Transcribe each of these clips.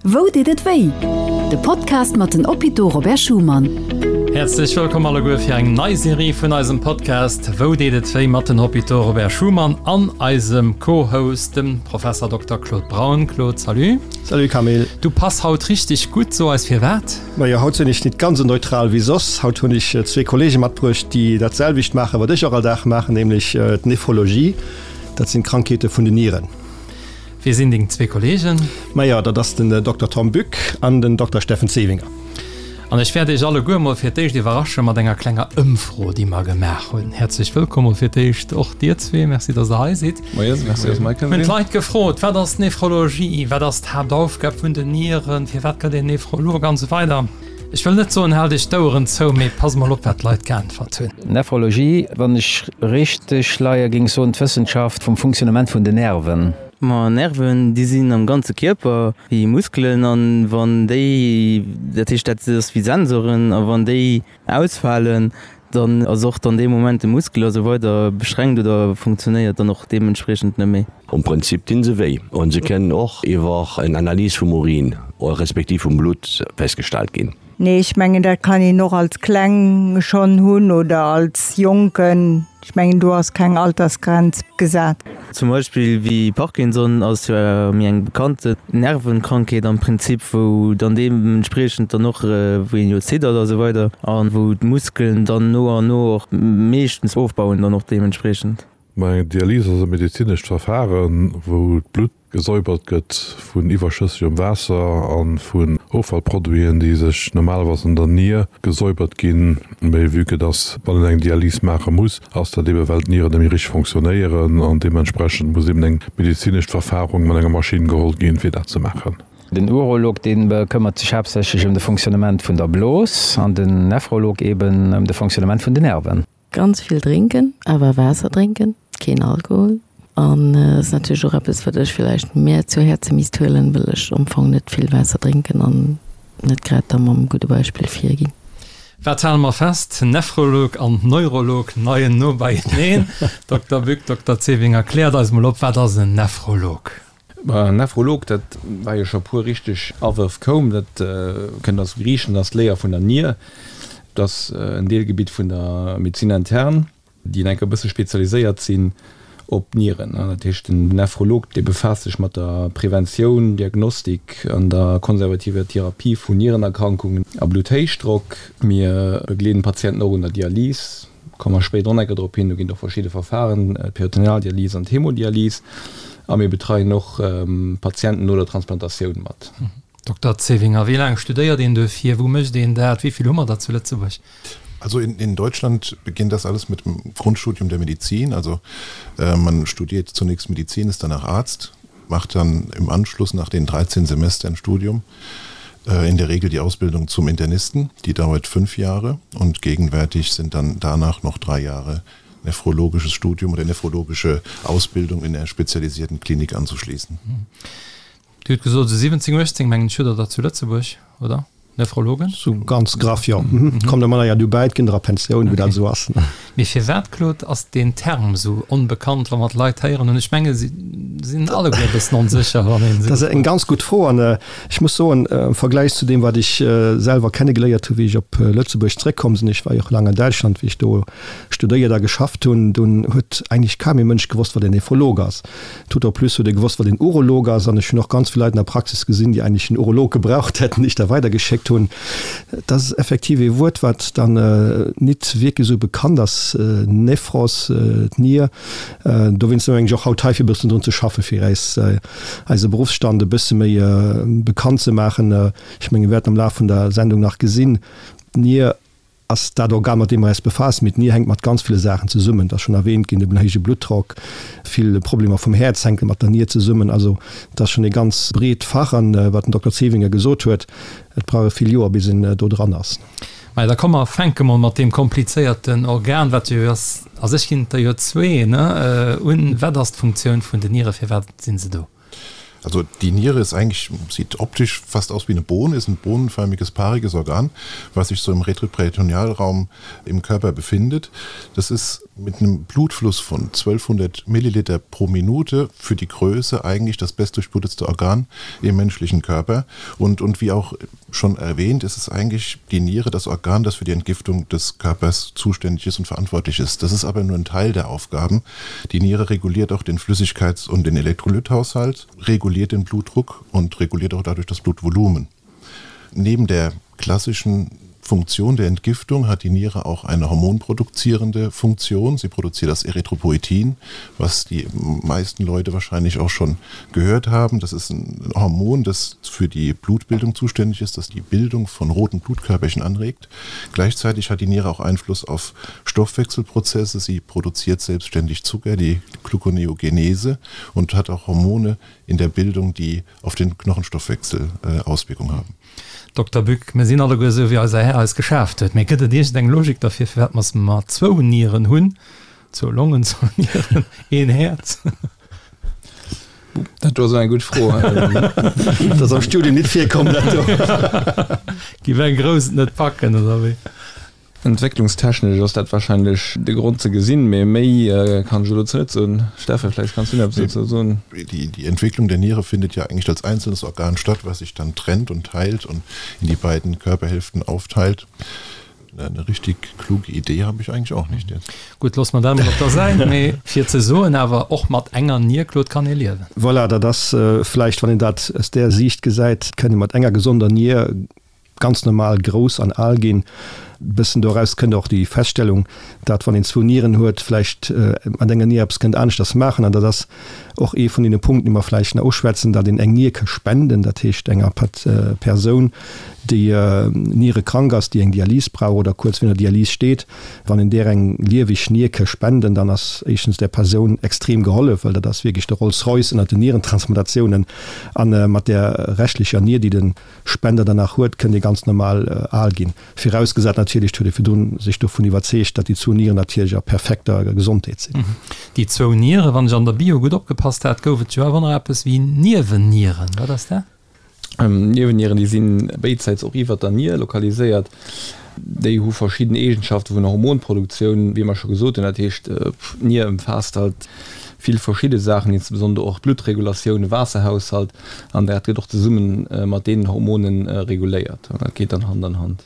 Wou deet et wéi? De Podcast mat den Hôpitaux Robert Schuman. Häerzlech wëllkomm alleguer fir eng nei Serie vun eisem Podcast Wou deet et wéi mat den Hôpitaux Robert Schuman an eisem Co-Host, dem Professor Dokter Claude Braun. Claude, salut. Salut Camille. Du pass haut richteg gutt, so eis firwat? Majo, haut sinn ech nit ganz esou neutral wéi soss. Haut hunn ech zwee Kollege matbruecht, déi dat selwecht maachen, wat ech och all Dag maachen, nämlech d'Nephrologie. Dat sinn d'Krankheete vun den Nieren. Wie sinn deng zwee Kollegen? Majo, dat ass den Dokter Tom Bück an den Dokter Steffen Zevinger. An ech wäert iech alleguer mol fir d'éischt iwwerrasche mat enger klenger Ëmfro, déi mer gemaach hunn. Häerzlech wëllkomm mol fir d'éischt och dir zwee. Merci, dass der hei sidd. Moien, merci, dass mer hei kënne sinn. Mir hunn d'Leit gefrot, Wat ass Nephrologie? Wat ass d'Haaptaufgab vun den Nieren? Firwat gëtt een Nephrolog? An esou weider. Ech wëll net soen, haalt iech d'Oueren zou, mee passt mol op, wat d'Leit geäntwert hunn. Nephrologie, wann ech richteg leie, géing soen, d'Wëssenschaft vum Funktionnement vun den Nerven. Ma Nerven, déi sinn am ganze Kierper wéi Muskelen an wann déi, dat heescht dat ass wéi Sensoren, a wann déi ausfalen, dann ass och dann dee Moment de Muskel a sou weider beschränkt oder funktionéiert dann och deementspriechend net méi. Am Prinzip dinn se wéi an se kënnen och iwwer en Analys vum Urin respektiv vum Blutt festgestallt ginn. Nee, ech mengen dat kann een och als Kleng schonn hunn oder als Jonken. Ech mengen do ass keng Altersgrenz gesat. Zum Beispill wéi Parkinson ass jo méi eng bekannte Nervenkrankheet am Prinzip, wou dann deementspriechend dann och, wou een jo ziddert a sou weider a wou d'Muskelen dann no an no och meeschtens ofbauen dann och deementspriechend. Ma eng Dialys ass e medezinescht Verfaren, wou d'Blutt gesäubert gëtt vun iwwerschëssegem Waasser a vun Offallproduiten, déi sech normalerweis an der Nier gesäubert ginn. Mee vue que dass, wann een eng Dialys maache muss, ass dat eebe well d'Nieren net méi richteg fonctionnéieren an deementsprechend muss eeben eng medezinescht Verfahrung mat enger Maschinn geholl ginn, fir dat ze maachen. Den Urolog, dee bekëmmert sech haaptsächlech ëm de Fonctionnement vun der Blos an den Nephrolog eeben ëm de Fonctionnement vun den Nerven. Ganz vill drénken, awer Waasser drénken, keen Alkohol. An ass natierlech och eppes, wat ech villäicht mär zu Häerze misst huelen, well ech am Fong net vill Waasser drénken an net grad da mam gudde Beispill virginn. Wat hale mer fest? Nephrolog an Neurolog leien no beieneen. Dokter Bück, Dokter Zevinger, kläert eis mol op, wat ass en Nephrolog? En Nephrolog, dat war jo scho puer richteg Awërf koum, dat kënnt aus dem Griichen, dat ass d'Léier vun der Nier. Dat ass en Deelgebitt vun der Médecine interne, déi enk e bësse spezialiséiert sinn op d'Nieren. Dat heescht, den Nephrolog, dee befaasst sech mat der Preventioun, Diagnostik an der konservativer Therapie vun Nierenerkrankungen a Blutthéichdrock. Mir begleeden d'Patienten och un der Dialys. Komme mer spéider och nach eng Kéier drop hin. Do ginn et och verschidde Verfahren, d'Peritonealdialys an d'Hemodialys. A mir betreien och Patienten no der Transplantatioun mat. Dokter Zevinger, wéi laang studéiert een duerfir? Wou mécht een dat? Wéi vill hu mer der zu Lëtzebuerg? Also in, in Deutschland beginnt das alles mit dem Grundstudium der Medizin. Also äh, man studiert zunächst Medizin, ist danach Arzt, macht dann im Anschluss nach den 13 Semestern Studium äh, in der Regel die Ausbildung zum Internisten, die dauert fünf Jahre und gegenwärtig sind dann danach noch drei Jahre nephrologisches Studium oder nephrologische Ausbildung in der spezialisierten Klinik anzuschließen. Dir hutt gesot, esou 17, 18, mengen ech, hutt Der der zu Lëtzebuerg, oder? Nephrologen? Sou ganz graff, jo. Kommt der manner ja dobäi, et ginn der a Pensioun, wou dat esou ass. Mee firwat, Claude, ass deen Term esou onbekannt, wa mer d'Leit héieren? An ech menge si sinn alleguer e bëssen onsécher, wann een se. Dat ass eng ganz gutt Fro an ech muss soen, am Vergläich zu deem, wat ech selwer kennegeléiert hu wéi ech op Lëtzebuerg zréckkomm sinn, ech war jo och laang an Däitschland, wéi ech do studéiert a geschafft hunn, dunn huet eigentlech kaum ee Mënsch gewosst, wat en Nephrolog ass. Tout au plus huet e gewosst, wat een Urolog ass. An ech hunn och ganz vill Leit an der Praxis gesinn, déi eigentlech en Urolog gebraucht hätten, déi ech da weidergeschéckt hunn. Dat ass effektiv ee Wuert, wat dann nit wierklech esou bekannt ass, Nephros, d'Nier. Dowéinst si mer mengen ech och haut hei, fir e bëssen drun ze schaffen, fir äis eise Beruffsstand e bësse méi bekannt ze maachen. Ech menge mir wäerten am Laf vun der Sendung nach gesinn, d'Nier ass dat Organ, mat deem mer eis befaassen. Mee d'Nier hänkt mat ganz ville Saachen zesummen. Et ass schonn erwähnt ginn, den héije Bluttdrock, vill Problemer vum Häerz hänke mat der Nier zesummen. Also et ass schonn ee ganz breet Fach. An wat den Dokter Zevinger gesot huet, et brauch e vill Joer, bis een do dran ass. Majo, da komm mer fänke mol mat deem komplizéierten Organ, wat jo ass, a sech ginn et der jo zwee, ne, un. Wat ass d'Funktioun vun den Niere, firwat si se do? Also die Niere ist eigentlich sieht optisch fast aus wie eine Bohne, ist ein bohnenförmiges paariges Organ, was sich so im Retroperitonealraum im Körper befindet. Das ist mit einem Blutfluss von 1200 Milliliter pro Minute für die Größe eigentlich das bestdurchblutetste Organ im menschlichen Körper. Und, und wie auch schon erwähnt, ist es eigentlich die Niere das Organ, das für die Entgiftung des Körpers zuständig ist und verantwortlich ist. Das ist aber nur ein Teil der Aufgaben. Die Niere reguliert auch den Flüssigkeits- und den Elektrolythaushalt, reguliert den Blutdruck und reguliert auch dadurch das Blutvolumen. Neben der klassischen Funktion der Entgiftung hat die Niere auch eine hormonproduzierende Funktion. Sie produziert das Erythropoietin, was die meisten Leute wahrscheinlich auch schon gehört haben. Das ist ein Hormon, das für die Blutbildung zuständig ist, das die Bildung von roten Blutkörperchen anregt. Gleichzeitig hat die Niere auch Einfluss auf Stoffwechselprozesse. Sie produziert selbstständig Zucker, die Gluconeogenese und hat auch Hormone in der Bildung, die auf den Knochenstoffwechsel äh, Auswirkungen haben. Dokter Bück, mir sinn alleguer esou wéi eiser Här eis geschaaft huet. Mee gëtt et iergend eng Logik derfir, firwat mer mer zwou Nieren hunn, zwou Longen, zwou Nieren, een Häerz? Dat do ass eng gutt Fro. Dat ass am Studium nit virkomm, dat do. Giff eng Grouss et net packen, oder wéi? Entwécklungstechnesch ass dat wahrscheinlech de Grond ze gesinn, mee méi kann ech elo dozou net soen. Steffen, vläicht kanns du nach eppes dozou soen. Die Entwicklung der Niere findet ja eigentlich als einzelnes Organ statt, was sich dann trennt und teilt und in die beiden Körperhälften aufteilt. Eine richtig kluge Idee habe ich eigentlich auch nicht jetzt. Gutt, loosse mer dat emol op der Säit, mee fir ze soen awer, och mat enger Nier, Claude, kann ee liewen. Voilà, dat ass vläicht, wann een dat aus där Siicht gesäit, kënn ee mat enger gesonder Nier ganz normal grouss an al ginn. Bëssen doraus kënnt och déi Feststellung, dat wann een zwou Nieren huet, vläicht mat enger Nier eppes kënnt aneschters maachen. An dat ass och ee vun deene Punkten, déi mer vläicht nach uschwätzen, dat een eng Nier ka spenden, dat heescht enger Persoun, déi nierekrank ass, déi eng Dialys brauch oder kuerz virun der Dialys steet. Wann een där eng lieweg Nier ka spenden, dann ass éischtens där Persoun extrem gehollef, well dat ass wierklech de Rolls-Royce ënnert den Nierentransplantationen. A mat där reschtlecher Nier, déi de Spender danach huet, kënnt ee ganz normal al ginn. Virausgesat natierlech, et huet ee virdrun sech dovun iwwerzeegt, datt déi zwou Nieren natierlech a perfekter Gesondheet sinn. Déi zwou Nieren, wann ech an der Bio gutt opgepasst hat, gouf et jo awer nach eppes wéi Niewennieren. Wat ass dat? Niewennieren, déi si béidsäits och iwwert der Nier lokaliséiert. Déi hu verschidden Eegenschafte vun der Hormonproduktioun, wéi mer scho gesot hunn. Dat heescht, d'Nier ëmfaasst halt vill verschidde Saachen, insbesondere och d'Bluttregulatioun, de Waasserhaushalt, an dat gëtt och zesumme mat deenen Hormonen reguléiert. An dat geet dann Hand an Hand.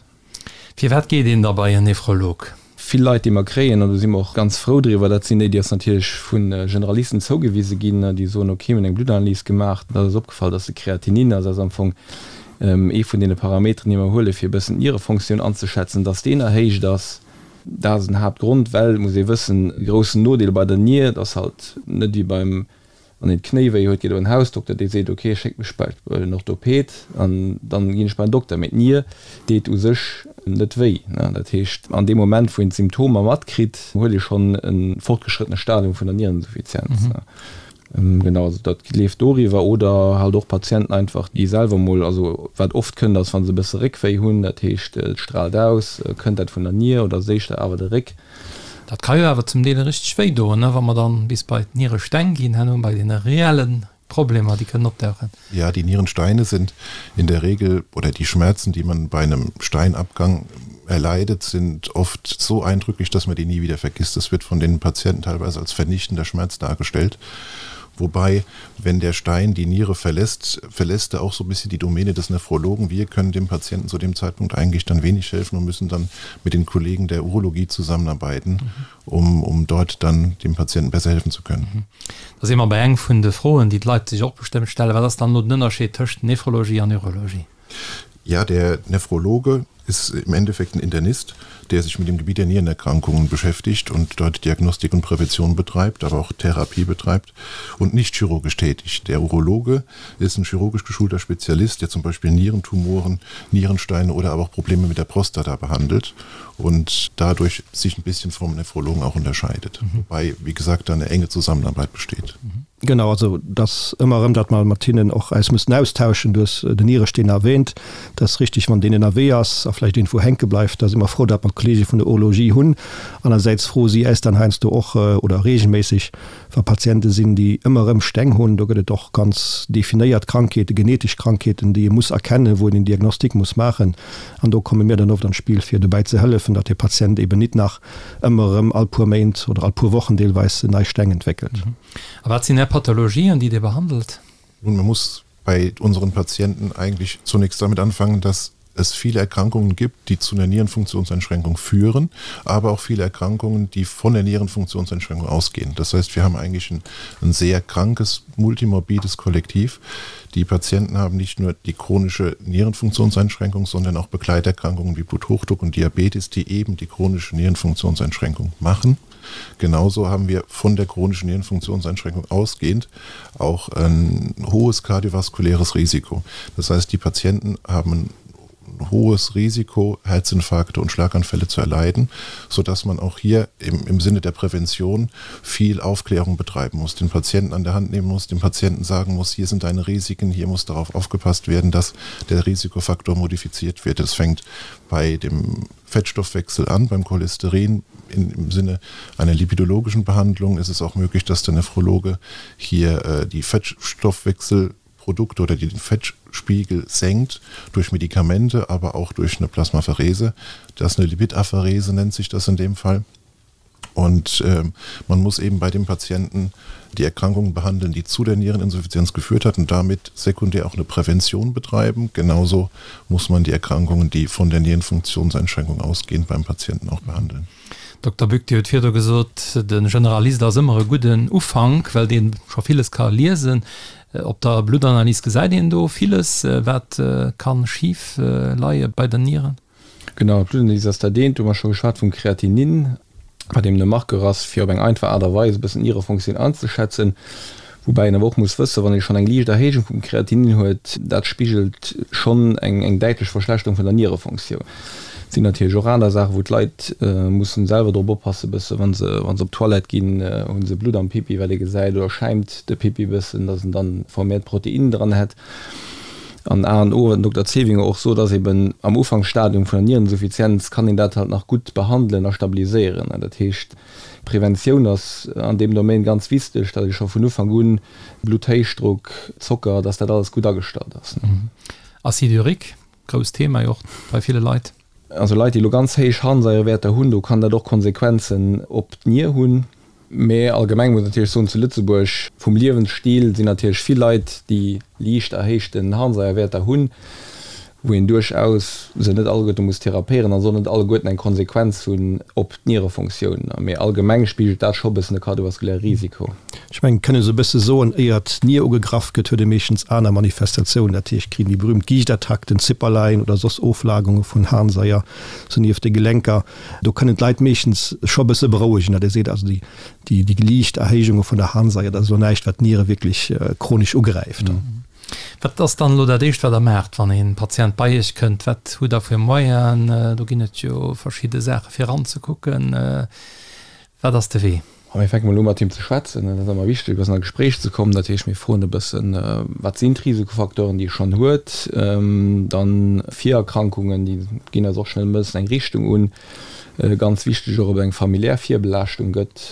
Firwat geet een da bei en Nephrolog? Vill Leit, déi mer kréien, an do si mer och ganz frou driwwer, dat sinn déi, déi eis natierlech vu Generalisten zougewise ginn, déi soen, okay, mir hunn eng Bluttanalyse gemaach, da ass eis opgefall, dass de Kreatinin, also dat ass am Fong ee vun deene Parameteren, déi mer huelen, fir e bëssen d'Nierefonctioun anzeschätzen, dass deen erhéicht ass. Dat ass en Haaptgrond, well, muss ee wëssen, e groussen Nodeel bei der Nier, et ass halt net wéi beim, wann een d'Knéi wéi huet, geet op en Hausdokter, dee seet, ok, schéckt mech bei en Orthoped an dann ginn ech bei en Dokter. Mee d'Nier deet u sech net wéi. Dat heescht, an deem Moment, wou een d'Symptomer matkritt, huet ee schonn e fortgeschrëttene Stadium vun der Niereninsuffizienz. Genau, also dat leeft doriwwer. Oder halt och Patienten einfach, déi selwer mol, also wat oft kënnt, ass, wa se e bësse Réckwéi hunn, dat heescht, et straalt aus, kënnt dat vun der Nier oder ass éischter awer de Réck. Dat ka jo awer zum Deel richteg wéi doen, ne, wa mer dann bis bei d'Nieresteng ginn, herno bei deene reelle Problemer, déi kënnen opdauchen. Ja, die Nierensteine sind in der Regel oder die Schmerzen, die man bei einem Steinabgang erleidet, sind oft so eindrücklich, dass man die nie wieder vergisst. Das wird von den Patienten teilweise als vernichtender Schmerz dargestellt. Wobei, wenn der Stein die Niere verlässt, verlässt er auch so ein bisschen die Domäne des Nephrologen. Wir können dem Patienten zu dem Zeitpunkt eigentlich dann wenig helfen und müssen dann mit den Kollegen der Urologie zusammenarbeiten, mhm. um, um dort dann dem Patienten besser helfen zu können. Mhm. Da si mer bei eng vun de Froen, déi d'Leit sech och bestëmmt stellen, Wat ass dann elo den Ënnerscheed tëscht Nephrologie an Urologie? Ja, der Nephrologe ist im Endeffekt ein Internist, der sich mit dem Gebiet der Nierenerkrankungen beschäftigt und dort Diagnostik und Prävention betreibt, aber auch Therapie betreibt und nicht chirurgisch tätig. Der Urologe ist ein chirurgisch geschulter Spezialist, der zum Beispiel Nierentumoren, Nierensteine oder aber auch Probleme mit der Prostata behandelt und dadurch sich ein bisschen vom Nephrologen auch unterscheidet. Mhm. Wobei, wie gesagt, da eine enge Zusammenarbeit besteht. Mhm. Genau, also dass ëmmer erëm, datt mer mat hinnen och eis mussen austauschen. Du hues den Nieresteen erwähnt, dat ass richtig, wann deen ënnerwee ass a. vläicht iergendwou hänke bleift. Da si mer frou, datt mer d'Kollege vun der Urologie hunn. Anersäits froe si äis dann heiansdo och oder reegelméisseg, wa Patiente sinn, déi ëmmer erëm Steng hunn. Do gëtt et och ganz definéiert Krankheeten, genetesch Krankheeten, déi ee muss erkennen, wou een en Diagnostic muss maachen. An do komme mir dann oft an d'Spill, fir dobäi ze hëllefen, datt de Patient eben nit nach ëmmer erëm all puer Méint oder all puer Wochen deelweis nei Steng entwéckelt. A wat sinn Är Pathologien, déi Dir behandelt? Nun, man muss bei unseren Patienten eigentlich zunächst damit anfangen, dass es viele Erkrankungen gibt, die zu einer Nierenfunktionseinschränkung führen, aber auch viele Erkrankungen, die von der Nierenfunktionseinschränkung ausgehen. Das heißt, wir haben eigentlich ein, ein sehr krankes, multimorbides Kollektiv. Die Patienten haben nicht nur die chronische Nierenfunktionseinschränkung, sondern auch Begleiterkrankungen wie Bluthochdruck und Diabetes, die eben die chronische Nierenfunktionseinschränkung machen. Genauso haben wir von der chronischen Nierenfunktionseinschränkung ausgehend auch ein hohes kardiovaskuläres Risiko. Das heißt, die Patienten haben ein hohes Risiko, Herzinfarkte und Schlaganfälle zu erleiden, so dass man auch hier im, im Sinne der Prävention viel Aufklärung betreiben muss, den Patienten an der Hand nehmen muss, dem Patienten sagen muss, hier sind deine Risiken, hier muss darauf aufgepasst werden, dass der Risikofaktor modifiziert wird. Es fängt bei dem Fettstoffwechsel an, beim Cholesterin in, im Sinne einer lipidologischen Behandlung ist es auch möglich, dass der Nephrologe hier äh, die Fettstoffwechselprodukte oder die den Fettspiegel senkt durch Medikamente, aber auch durch eine Plasmapherese. Das ist eine Lipidapherese nennt sich das in dem Fall. Und äh, man muss eben bei dem Patienten die Erkrankungen behandeln, die zu der Niereninsuffizienz geführt hat und damit sekundär auch eine Prävention betreiben. Genauso muss man die Erkrankungen, die von der Nierenfunktionseinschränkung ausgehen, beim Patienten auch behandeln. Dokter Bück, Dir hutt virdu gesot, de Generalist ass ëmmer e gudden Ufank, well dee scho villes ka liesen. Op der Bluttanalys gesäit een do villes, wat ka schif leie bei den Nieren. Genau, d'Bluttanalys ass dat eent. Do hu mer scho geschwat vum Kreatinin, wat eben e Marqueur ass, fir op eng einfach Aart a Weis e bëssen d'Nierefonktioun anzeschätzen. Woubäi een awer och muss wëssen, wann ee schonn eng liicht Erhéijung vum Kreatinin huet, dat spigelt schonn eng däitlech Verschlechterung vun der Nierefonktioun. Et sinn natierlech och aner Saachen, wou d'Leit mussen selwer drop oppassen e bëssen, wa se wa se op d'Toilette ginn, hu se Blutt am Pipi, wat ee gesäit, oder schäimt de Pipi e bëssen, datt en dann vermehrt Proteinen dran hätt. An A an O, wat den Dokter Zevinger och sot, ass eben, am Ufanksstadium vun der Niereninsuffizienz kann een dat halt nach gutt behandelen a stabiliséieren. Dat heescht, Preventioun ass an deem Domaine ganz wichteg, datt ee scho vun Ufank un Blutthéichdruck, Zocker, datt dat alles gutt agestallt ass. Acide urique, grousst Thema jo och bei ville Leit. Also Leit, déi elo ganz héich Harnsaierewäerter hunn, do kann dat och Konsequenzen op d'Nier hunn. Mä allgemeng muss een natierlech soen, zu Lëtzebuerg vum Liewensstil sinn natierlech vill Leit, déi liicht erhéichten Harnsaierwäerter hunn, wou een duerchaus se net alleguerte muss therapéieren a soll net alleguerten eng Konsequenz hunn op d'Nierefunktioun. Mee allgemeng spigelt dat scho e bëssen de kardiovaskuläre Risiko. Ech mengen, et kënne se e bësse soen, éier d'Nier ugegraff gëtt, huet ee meeschtens aner Manifestatiounen. Dat heescht, kritt een déi berühmt Giichtattack, den Zipperlein oder soss Oflagerunge vun Harnsaier sou nieft de Gelenker. Do kënnen d'Leit meeschtens scho e bësse berouegen, datt ee seet, also déi, déi liicht Erhéijunge vun der Harnsaier, dat ass elo näischt, wat d'Niere wierklech chronesch ugräift. Wat ass dann elo dat Éischt, wat Der maacht, wann ee Patient bei Iech kënnt? Wat hutt Der fir Moyenen? Do ginn et jo verschidde Saache fir eranzekucken. Wat ass de Wee? A mir fänke mol u mat him ze schwätzen. Dat ass ëmmer wichteg, e bëssen a Gespréich ze kommen. Dat heescht, mir froen e bëssen, wat sinn d'Risikofacteuren, déi e schonn huet. Dann Virerkrankungen, déi ginn eis och schnell e bëssen eng Richtung un. Ganz wichteg och, ob et eng familiär Virbelaaschtung gëtt.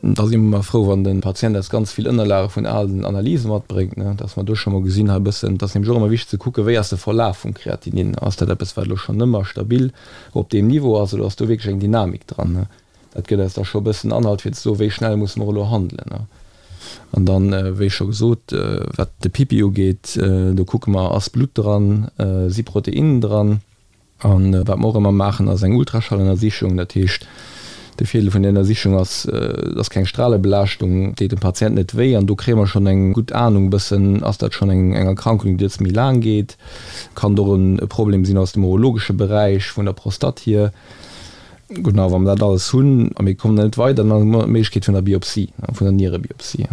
Da si mer ëmmer frou, wann de Patient eis ganz vill Ënnerlage vun alen Analyse matbréngt, dass mer do scho mol gesinn hei e bëssen. Et ass nämlech och ëmmer wichteg ze kucken, wéi ass de Verlaf vum Kreatinin. Ass dat eppes, wat elo schonn ëmmer stabil op deem Niveau ass oder ass do wierklech eng Dynamik dran? Dat gëtt eis da scho e bëssen Anhalt fir ze soen, wéi schnell musse mer elo handelen. An dann, wéi scho gesot, wat de Pipi ugeet, do kucke mer, ass Blutt dran, si Proteinnen dran. A wat mer och ëmmer maachen, ass eng Ultraschallënnersichung. Dat heescht, de Virdeel vun där Ënnersichung ass, et ass keng Stralebelaaschtung, deet dem Patient net wéi an do kréie mer schonn eng gutt Anung e bëssen, ass dat schonn eng Erkrankung, déi jetzt méi laang geet, kann et och e Problem sinn aus dem urologesche Beräich, vun der Prostate hier. Gutt, a wa mer dat alles hunn a mir kommen net weider, dann hu mer d'Méiglechkeet vun der Biopsie, vun der Nierebiopsie.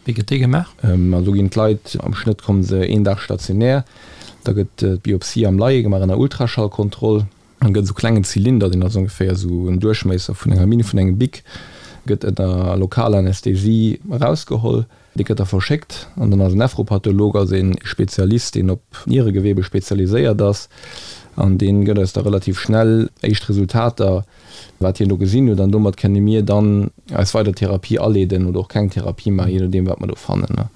Wéi gëtt déi gemaach? Also do ginn d'Leit, am Schnëtt komme se een Dag stationär. Da gëtt d'Biopsie am Leie gemaach ënner Ultraschallkontroll. Dann gëtt esou klengen Zylinder, deen ass ongeféier esou en Duerchmiesser vun enger Minn vun engem Bic, gëtt ënner lokaler Anästhesie erausgeholl. Dee gëtt da verschéckt an dann ass en Nephropatholog, also een Spezialist, deen op Nieregewebe spezialiséiert ass. An dee gëtt eis da relativ schnell éischt Resultater, wat hien do gesinn huet. An domat kënne mir dann eis weider Therapie aleeden oder och keng Therapie maachen, jee nodeem wat mer do fannen.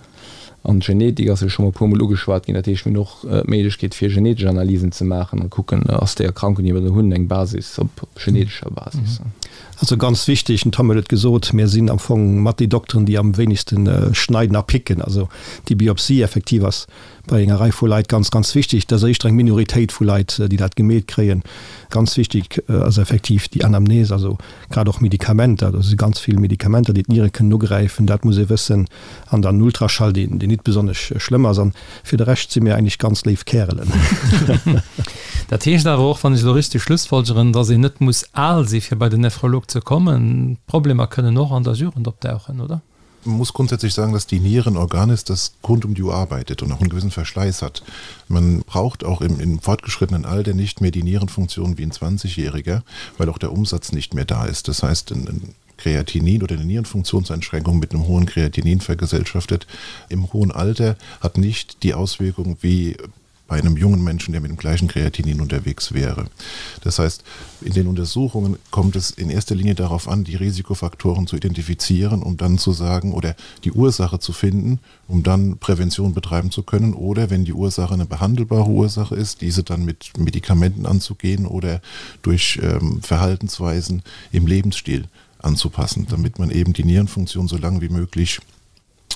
An d'Genetik ass jo scho mol e puermol ugeschwat ginn. Dat heescht, mir hunn och d'Méiglechkeet fir genetesch Analysen ze maachen an kucken, ass déi Erkrankung, déi mer do hunn, eng Basis op genetescher Basis. Also ganz wichteg, den Tom huet et gesot, mir sinn am Fong mat déi Dokteren, déi am wéinegste schneiden a picken. Also déi Biopsie effektiv ass bei enger Rei vu Leit ganz, ganz wichteg. Dat ass éischter eng Minoritéit vu Leit, déi dat gemeet kréien. Ganz wichteg ass effektiv déi Anamnese, also grad och Medikamenter. Do si ganz vill Medikamenter, déi d'Niere kënnen ugräifen, dat muss ee wëssen. An dann Ultraschall, deen nit besonnesch schlëmm ass. An fir de Rescht si mir eigentlech ganz léif Kärelen. Dat heescht awer och, wann ech elo richteg schlussfolgeren, dass een net muss al si fir bei den Nephrolog ze kommen. D'Problemer kënnen och an der Jugend opdauchen, oder? Man muss grundsätzlich sagen, dass die Niere ein Organ ist, das rund um die Uhr arbeitet und auch einen gewissen Verschleiß hat. Man braucht auch im, im fortgeschrittenen Alter nicht mehr die Nierenfunktion wie ein 20-Jähriger, weil auch der Umsatz nicht mehr da ist. Das heißt, ein, ein Kreatinin oder eine Nierenfunktionseinschränkung mit einem hohen Kreatinin vergesellschaftet im hohen Alter hat nicht die Auswirkung wie bei einem jungen Menschen, der mit dem gleichen Kreatinin unterwegs wäre. Das heißt, in den Untersuchungen kommt es in erster Linie darauf an, die Risikofaktoren zu identifizieren, um dann zu sagen oder die Ursache zu finden, um dann Prävention betreiben zu können oder wenn die Ursache eine behandelbare Ursache ist, diese dann mit Medikamenten anzugehen oder durch ähm, Verhaltensweisen im Lebensstil anzupassen, damit man eben die Nierenfunktion so lange wie möglich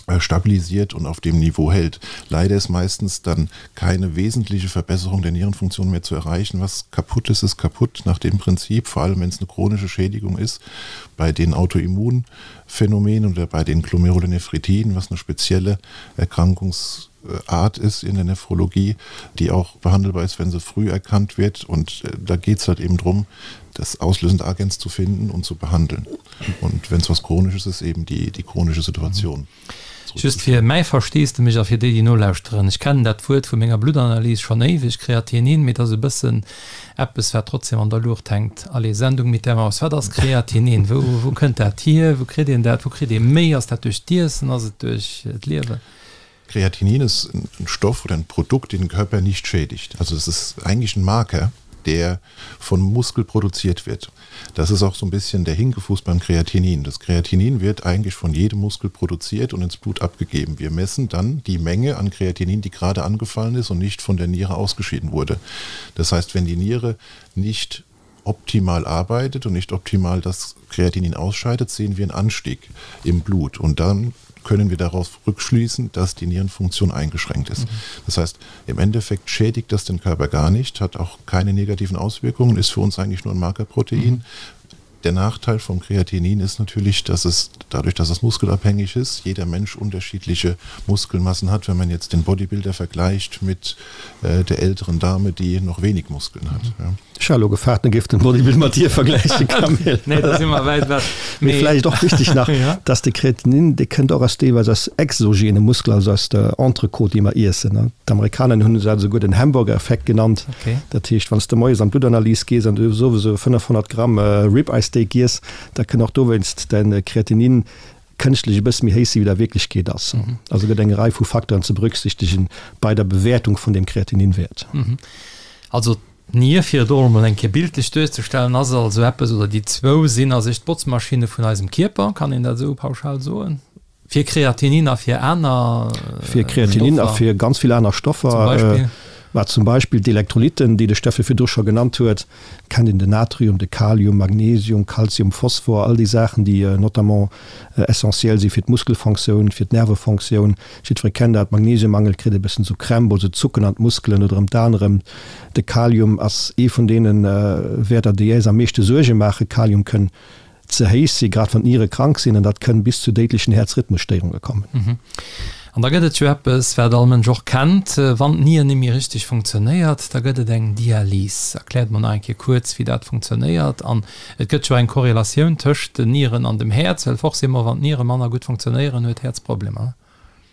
äh, stabilisiert und auf dem Niveau hält. Leider ist meistens dann keine wesentliche Verbesserung der Nierenfunktion mehr zu erreichen. Was kaputt ist, ist kaputt nach dem Prinzip, vor allem wenn es eine chronische Schädigung ist, bei den Autoimmunphänomenen oder bei den Glomerulonephritiden, was eine spezielle Erkrankungsart ist in der Nephrologie, die auch behandelbar ist, wenn sie früh erkannt wird. Und äh, da geht es halt eben darum, das auslösende Agens zu finden und zu behandeln. Und wenn es was Chronisches ist, eben die, die chronische Situation. Just fir mäi Versteesdemech a fir déi, déi nolauschteren, Ech kennen dat Wuert vu menger Bluttanalys schonn éiweg, Kreatinin, mee et ass e bëssen eppes, wat trotzdem an der Luucht hänkt. Allez, Sendung mit der Maus, Wat ass Kreatinin? Wou, wou kënnt dat hier? Wou kritt een dat? Wou kritt ee méi? Ass dat duerch d'Iessen? Ass et duerch d'Liewen? Kreatinin ist ein Stoff oder ein Produkt, den den Körper nicht schädigt. Also es ist eigentlich ein Marker, der von Muskel produziert wird. Das ist auch so ein bisschen der Hinkefuß beim Kreatinin. Das Kreatinin wird eigentlich von jedem Muskel produziert und ins Blut abgegeben. Wir messen dann die Menge an Kreatinin, die gerade angefallen ist und nicht von der Niere ausgeschieden wurde. Das heißt, wenn die Niere nicht optimal arbeitet und nicht optimal das Kreatinin ausscheidet, sehen wir einen Anstieg im Blut und dann können wir darauf rückschließen, dass die Nierenfunktion eingeschränkt ist. Mhm. Das heißt, im Endeffekt schädigt das den Körper gar nicht, hat auch keine negativen Auswirkungen, ist für uns eigentlich nur ein Markerprotein. Mhm. Der Nachteil vom Kreatinin ist natürlich, dass es dadurch, dass es muskelabhängig ist, jeder Mensch unterschiedliche Muskelmassen hat, wenn man jetzt den Bodybuilder vergleicht mit äh, der älteren Dame, die noch wenig Muskeln hat. Mhm. Ja. Ech war elo gefaart, en géif den Bodybuilder mat dir vergläichen, Camille. Nee, da si mer wäit ewech. Mee vläicht och wichteg nach, dass de Kreatinin, dee kënnt och aus deelweis aus exogene Muskeln, also aus der Entrecôte, déi mer iessen. D'Amerikaner hunn dat esouguer den Hamburger-Effekt genannt. Dat heescht, wann s de moies an d'Bluttanalys gees an du hues owes esou 500 Gramm Rib-Eye Steak giess, da kënn och dowéinst däin Kreatinin kënschtlech e bësse méi héich sinn, wéi dat a Wierklechkeet ass. Also gëtt eng Rei vu Facteuren ze berücksichtegen bei der Bewäertung vun deem Kreatininwäert. Also d'Nier, fir et och emol eng Kéier bildlech duerzestellen, ass also eppes, oder déi zwou sinn a sech d'Botzmaschinne vun eisem Kierper, kann een dat esou pauschal soen? Fir Kreatinin a fir aner Stoffer? Fir Kreatinin a fir ganz vill aner Stoffer. Zum Beispill? Wat zum Beispill d'Elektrolytten, déi de Steffe virdru scho genannt huet. Kennt een den Natrium, de Kalium, Magnesium, Kalzium, Phosphor, all déi Saachen, déi notamment essentiell si fir d'Muskelfonctioun, fir d'Nervefonctioun. Jiddweree kennt dat, Magnesiummangel kritt e bëssen esou Krämp oder esou Zucken an d'Muskelen oder ëm d'Aen erëm. De Kalium ass ee vun deene Wäerter, déi äis am meeschte Suerge maachen. Kalium kënn ze héich si, grad wann d'Niere krank sinn, an dat kënn bis zu déidlechen Häerzrhythmusstéierunge kommen. An da gëtt et jo eppes, wat all Mënsch och kennt, wann d'Nier net méi richteg funktionéiert, da gëtt et eng Dialys. Erkläert mer nach eng Kéier kuerz, wéi dat funktionéiert. An et gëtt jo eng Korrelatioun tëscht den Nieren an dem Häerz, well forcément, wann d'Niere manner gutt funktionéieren, huet d'Häerz Problemer.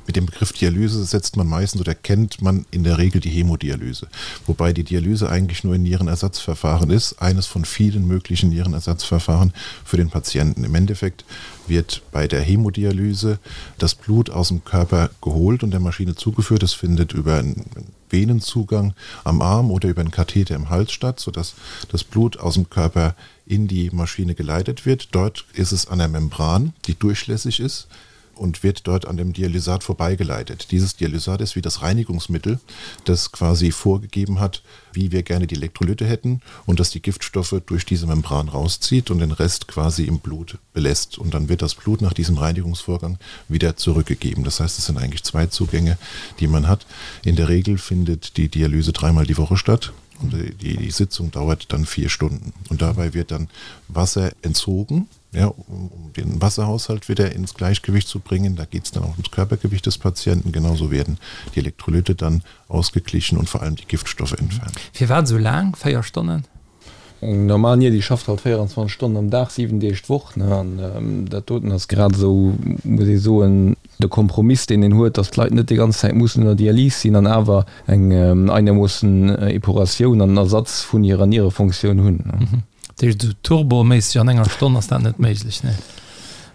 Mit dem Begriff Dialyse setzt man meistens oder kennt man in der Regel die Hämodialyse, wobei die Dialyse eigentlich nur ein Nierenersatzverfahren ist, eines von vielen möglichen Nierenersatzverfahren für den Patienten. Im Endeffekt wird bei der Hämodialyse das Blut aus dem Körper geholt und der Maschine zugeführt. Es findet über einen Venenzugang am Arm oder über einen Katheter im Hals statt, sodass das Blut aus dem Körper in die Maschine geleitet wird. Dort ist es an der Membran, die durchlässig ist und wird dort an dem Dialysat vorbeigeleitet. Dieses Dialysat ist wie das Reinigungsmittel, das quasi vorgegeben hat, wie wir gerne die Elektrolyte hätten und dass die Giftstoffe durch diese Membran rauszieht und den Rest quasi im Blut belässt. Und dann wird das Blut nach diesem Reinigungsvorgang wieder zurückgegeben. Das heißt, es sind eigentlich zwei Zugänge, die man hat. In der Regel findet die Dialyse dreimal die Woche statt. Und die, die Sitzung dauert dann vier Stunden. Und dabei wird dann Wasser entzogen, ja, um, um den Wasserhaushalt wieder ins Gleichgewicht zu bringen. Da geht es dann auch ums Körpergewicht des Patienten. Genauso werden die Elektrolyte dann ausgeglichen und vor allem die Giftstoffe entfernt. Firwat esou laang? 4 Stonnen? Eng normal Nier, déi schafft halt 24 Stonnen am Dag, 7 Deeg d'Woch, ne? An dat doten ass grad esou, muss ee soen, de Kompromiss, deen een huet, datt d'Leit net déi ganz Zäit mussen ënner Dialys sinn an awer eng einermoossen Epuratioun an Ersatz vun hirer Nierefonktioun hunn. Dat heescht, esou turboméisseg an enger Stonn ass dat net méiglech, nee?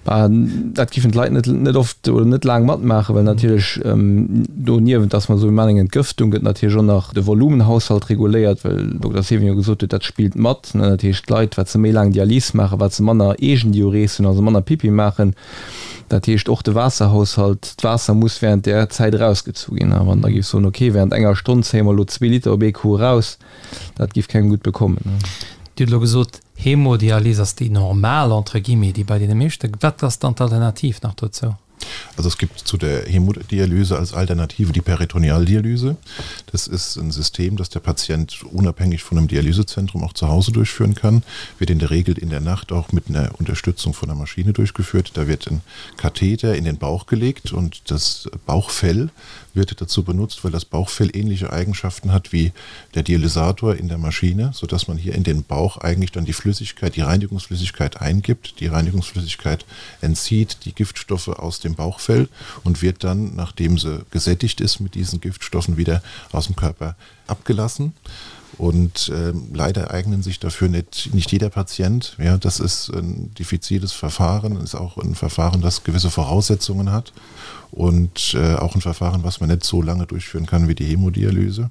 Bah, dat giffen d'Leit net, net oft oder net laang matmaachen, well natierlech doniewent, dass mer soe mir maachen eng Entgëftung, gëtt natierlech och nach de Volumenhaushalt reguléiert, well den Dokter Seven jo gesot huet, dat spillt mat. Dat heescht, d'Leit, wat se méi laang Dialys maachen, wat se manner Eegendiurese hunn, also manner Pipi maachen, dat heescht och de Waasserhaushalt, d'Waasser muss während där Zäit erausgezu ginn. A wann Der géift soen, okay, während enger Stonn zéie mer elo zwee Liter op ee Coup eraus, Dat giff kengem gutt bekommen. Dir hutt elo gesot, Hämodialyse ass déi normal, entre guillemets, déi bei deene meeschte. Wat ass dann d'Alternativ nach dozou? Also es gibt zu der Hämodialyse als Alternative die Peritonealdialyse. Das ist ein System, das der Patient unabhängig von einem Dialysezentrum auch zu Hause durchführen kann. Wird in der Regel in der Nacht auch mit einer Unterstützung von der Maschine durchgeführt. Da wird ein Katheter in den Bauch gelegt und das Bauchfell wird dazu benutzt, weil das Bauchfell ähnliche Eigenschaften hat wie der Dialysator in der Maschine, sodass man hier in den Bauch eigentlich dann die Flüssigkeit, die Reinigungsflüssigkeit eingibt. Die Reinigungsflüssigkeit entzieht die Giftstoffe aus dem Bauchfell und wird dann, nachdem sie gesättigt ist mit diesen Giftstoffen, wieder aus dem Körper abgelassen. Und äh, leider eignen sich dafür nicht, nicht jeder Patient. Ja, das ist ein diffiziles Verfahren, ist auch ein Verfahren, das gewisse Voraussetzungen hat und äh, auch ein Verfahren, was man nicht so lange durchführen kann wie die Hämodialyse.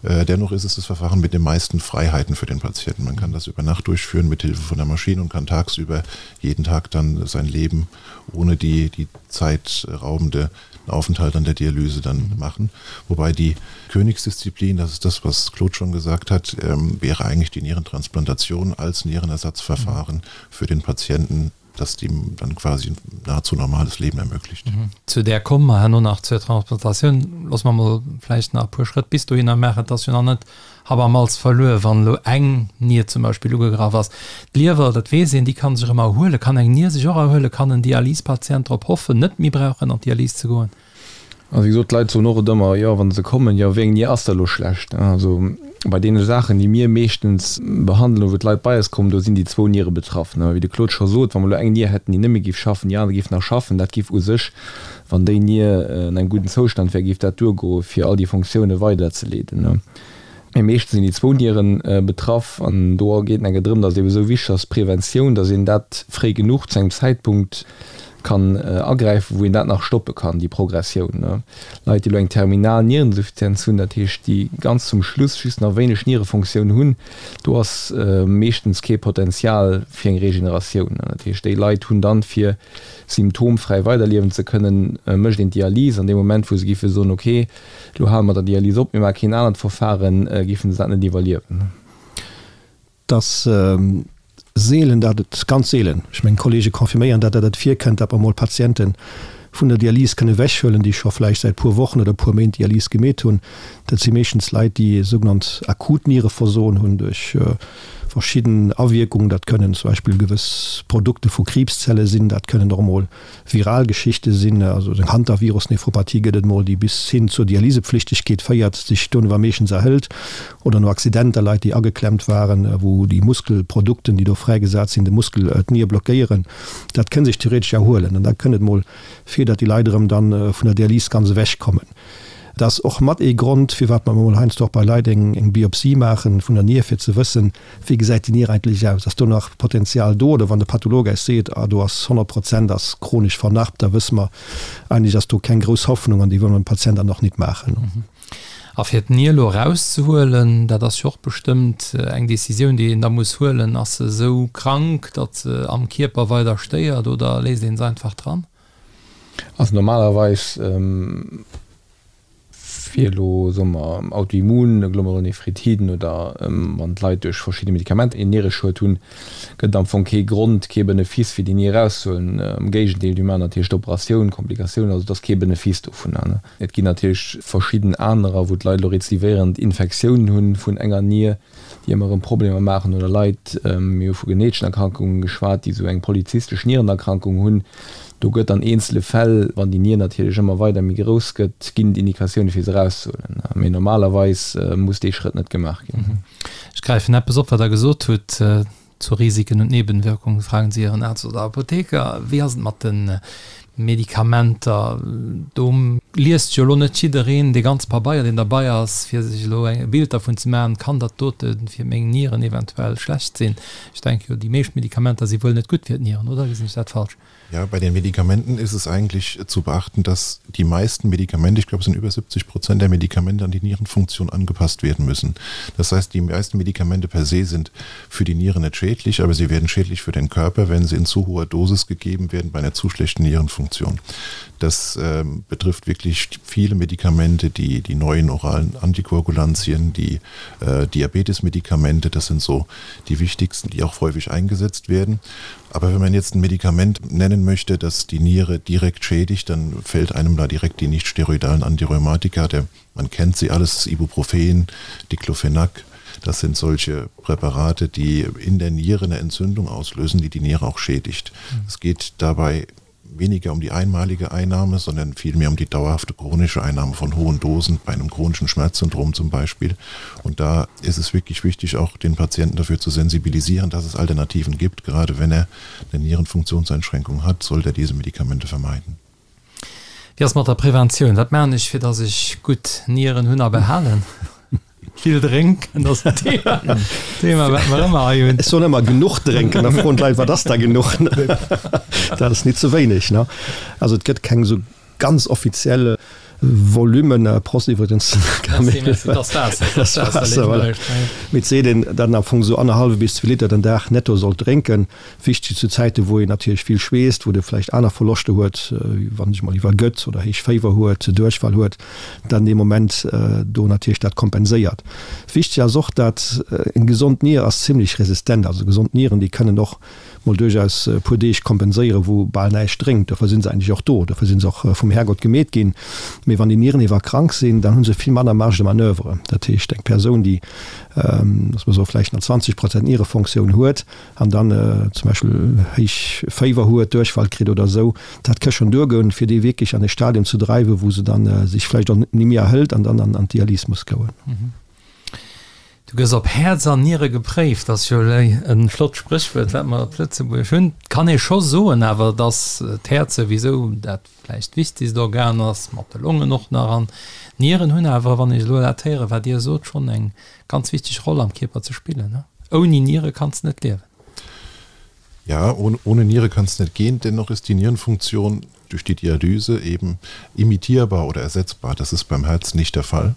Äh, dennoch ist es das Verfahren mit den meisten Freiheiten für den Patienten. Man kann das über Nacht durchführen mit Hilfe von der Maschine und kann tagsüber jeden Tag dann sein Leben ohne die, die zeitraubende Aufenthalt an der Dialyse dann mhm. machen. Wobei die Königsdisziplin, das ist das, was Claude schon gesagt hat, ähm, wäre eigentlich die Nierentransplantation als Nierenersatzverfahren mhm. für den Patienten das ihm dann quasi ein nahezu normales Leben ermöglicht. Mhm. Zu där komme mer herno nach, zur Transplantatioun. Loosse mer mol vläicht nach e puer Schrëtt bis dohinner maachen. Et ass jo nach net Happ am Malz verluer, wann elo eng Nier zum Beispill ugegraff ass. D'Liewer, dat weess een, déi kann sech erëm erhuelen. Kann eng Nier sech och erhuelen? Kann en Dialyspatient drop hoffen, net méi brauchen an d'Dialys ze goen? Also wéi gesot, d'Leit soen och et ëmmer, jo, wa se kommen, jo, wéi eng Nier ass da elo schlecht? Also bei deene Saachen, déi mir meeschtens behandelen, wou d'Leit bei eis kommen, do sinn déi zwou Niere betraff. Wéi de Claude scho sot, wa mer elo eng Nier hätten, déi net méi géif schaffen, déi aner géif nach schaffen, dat géif u sech, wann déi Nier an engem gudden Zoustand wär, géif dat duergoe fir all déi Fonctioune weiderzeleeden. Mee meeschtens sinn déi zwou Niere betraff an do geet et enke drëm, datt et ebe sou wichteg ass, d'Preventioun, datt een dat fréi genuch zu engem Zäitpunkt kann agräifen, wou een dat nach stoppe kann, déi Progressioun. Leit, déi elo eng terminal Nierensuffizienz hunn, dat heescht, déi ganz zum Schluss just nach wéineg Nierefonctioun hunn, do ass meeschtens kee Potenzial fir eng Regeneratioun. Dat heescht, déi Leit hunn dann, fir symptomfräi weiderliewen ze kënnen, mécht een d'Dialys. An deem Moment, wou se géife soen, okay, elo hale mer der Dialys op, mir maache keen anert Verfaren, géife se dat net iwwerliewen. Et ass seelen, dat et, ganz seelen, ech mengen d'Kollege confirméieren dat, dat et virkënnt, dat mer mol Patiente vun der Dialys kënne ewechhuelen, déi scho vläicht säit puer Wochen oder puer Méint Dialys gemeet hunn. Dat si meeschtens Leit, déi sougenannt akut Niereversoen hunn duerch verschidden Awierkungen. Dat kënnen zum Beispill gewëss Produkte vu Kriibszelle sinn, dat kënnen och emol viral Geschichte sinn, also eng Hantavirus-Nephropathie gëtt et mol, déi bis hin zur Dialysepflichtegkeet féiert, sech dono awer meeschtens erhëlt, oder no Accidenter, Leit, déi ageklemmt waren, wou déi Muskelprodukten, déi do fräigesat sinn, de Muskel, d'Nier blockéieren. Dat kënn sech theoretesch erhuelen an da kënn et mol vir. fir datt déi Leit erëm dann vun der Dialys ganz ewech kommen. Dat ass och mat ee Grond, firwat mer emol heiansdo och bei Leit eng eng Biopsie maachen vun der Nier, fir ze wëssen, wéi gesäit déi Nier eigentlech aus, ass do nach Potenzial do, oder wann de Patholog eis seet, ah do ass 100 Prozent ass chronesch vernarbt, da wësse mer, eigentlech ass do keng grouss Hoffnung an déi wëlle mer dem Patient dann och nit maachen. A fir d'Nier elo erauszehuelen, dat ass jo och bestëmmt eng Décisioun, déi een da muss huelen, ass se esou krank, datt se am Kierper weider stéiert oder léisst ee se einfach dran? Also normalerweis, fir elo, soe mer, Autoimmun-Glomerulonephritiden oder wann d'Leit duerch verschidde Medikamenter een Niereschued hunn, gëtt et am Fong kee Grond, kee Benefice fir déi Nier erauszehuelen. Am Géigendeel, déi maachen natierlech d'Operatioun, Komplikatiounen, also et ass kee Benefice dovunner. Et ginn natierlech verschidden anerer, wou d'Leit elo rezidivéierend Infektiounen hunn vun enger Nier, déi ëmmer erëm Problemer maachen, oder Leit, mir hu vu geneteschen Erkrankungen geschwat, déi esou eng polyzystesch Nierenerkrankung hunn. Do gëtt an eenzele Fäll, wann déi Nier natierlech ëmmer weider méi grouss gëtt, ginn et Indikatioune fir se erauszehuelen. Mee normalerweis muss dee Schrëtt net gemaach ginn. Ech gräifen eppes op, wat Der gesot hutt. Zu Risiken und Nebenwirkungen fragen Sie Ihren Arzt oder Apotheker. Wéi ass et mat de Medikamenter? Do liest jo elo net jiddereen dee ganze Pabeier, deen derbei ass, fir sech elo e Bild dervun ze maachen, kann dat dote fir meng Nieren eventuell schlecht sinn? Ech denke jo, déi meescht Medikamenter si wuel net gutt fir d'Nieren, oder gesinn ech dat falsch? Ja, bei den Medikamenten ist es eigentlich zu beachten, dass die meisten Medikamente, ich glaube es sind über 70 Prozent der Medikamente an die Nierenfunktion angepasst werden müssen. Das heißt, die meisten Medikamente per se sind für die Nieren nicht schädlich, aber sie werden schädlich für den Körper, wenn sie in zu hoher Dosis gegeben werden bei einer zu schlechten Nierenfunktion. Das äh, betrifft wirklich viele Medikamente, die, die neuen oralen Antikoagulantien, die äh, Diabetesmedikamente, das sind so die wichtigsten, die auch häufig eingesetzt werden. Aber wenn man jetzt ein Medikament nennen möchte, das die Niere direkt schädigt, dann fällt einem da direkt die nicht steroidalen Antirheumatika, der, man kennt sie alles, Ibuprofen, Diclofenac, das sind solche Präparate, die in der Niere eine Entzündung auslösen, die die Niere auch schädigt. Mhm. Es geht dabei weniger um die einmalige Einnahme, sondern vielmehr um die dauerhafte chronische Einnahme von hohen Dosen bei einem chronischen Schmerzsyndrom zum Beispiel. Und da ist es wirklich wichtig, auch den Patienten dafür zu sensibilisieren, dass es Alternativen gibt. Gerade wenn er eine Nierenfunktionseinschränkung hat, sollte er diese Medikamente vermeiden. Wéi ass mat der Preventioun? Wat maachen ech fir dass ech gutt Nieren hunn a behalen? Vill drénken ass en Thema, Thema wat mer ëmmer hei hunn. Ech soen ëmmer genuch drénken, da froen d'Leit, wat ass da genuch? Dat ass nit ze wéineg, ne? Also et gëtt keng esou ganz offiziell Volummen, Prost iwwregens, Camille. Dat ass Waasser, dat ass Waasser, voilà. Mee et seet een, datt een am Fong esou annerhallwe bis zwee Liter den Dag netto sollt drénken. Wichteg zu Zäiten, wou een natierlech vill schweesst, wou de vläicht aner Verloschter huet, wéi wann sech mol iwwergëtt oder héich Féiwer huet, Duerchfall huet, dann dee Moment do natierlech dat kompenséiert. Wichteg ass och, dat eng gesond Nier ass zimlech resistent, also gesond Nieren, déi kënnen och mol duerchaus e puer Deeg kompenséieren, wou bal näischt drénkt. Dofir si se eigentlech och do, dofir si se och vum Härgott gemeet ginn. Mee wann déi Nieren ewer krank sinn, dann hu se vill manner Marge de manoeuvre. Dat heescht, eng Persoun, déi, loosse mer soe vläicht nach 20 Prozent Nierefonctioun huet, an dann zum Beispill héich Féiwer huet, Duerchfall kritt oder esou, dat ka schonn duergoen, fir déi wierklech an e Stadium ze dreiwen, wou se dann sech vläicht och ni méi erhëlt an dann an d'Dialys muss goen. Du gëss op Häerz an Niere gepréift, ass jo e flott Spréchwuert, wat mer op Lëtzebuerg hunn. Et kann ee scho soen awer, datt d'Häerz souwisou dat vläicht wichtegst Organ ass, mat de Longen och nach. An d'Nieren hunn awer, wann ech elo dat héieren, wat Dir sot, schonn eng ganz wichteg Roll am Kierper ze spillen. Ouni Niere kanns de net liewen. Ja, ohne, ohne Niere kann's net gehen. Dennoch ist die Nierenfunktion durch die Dialyse eben imitierbar oder ersetzbar. Das ist beim Herz nicht der Fall.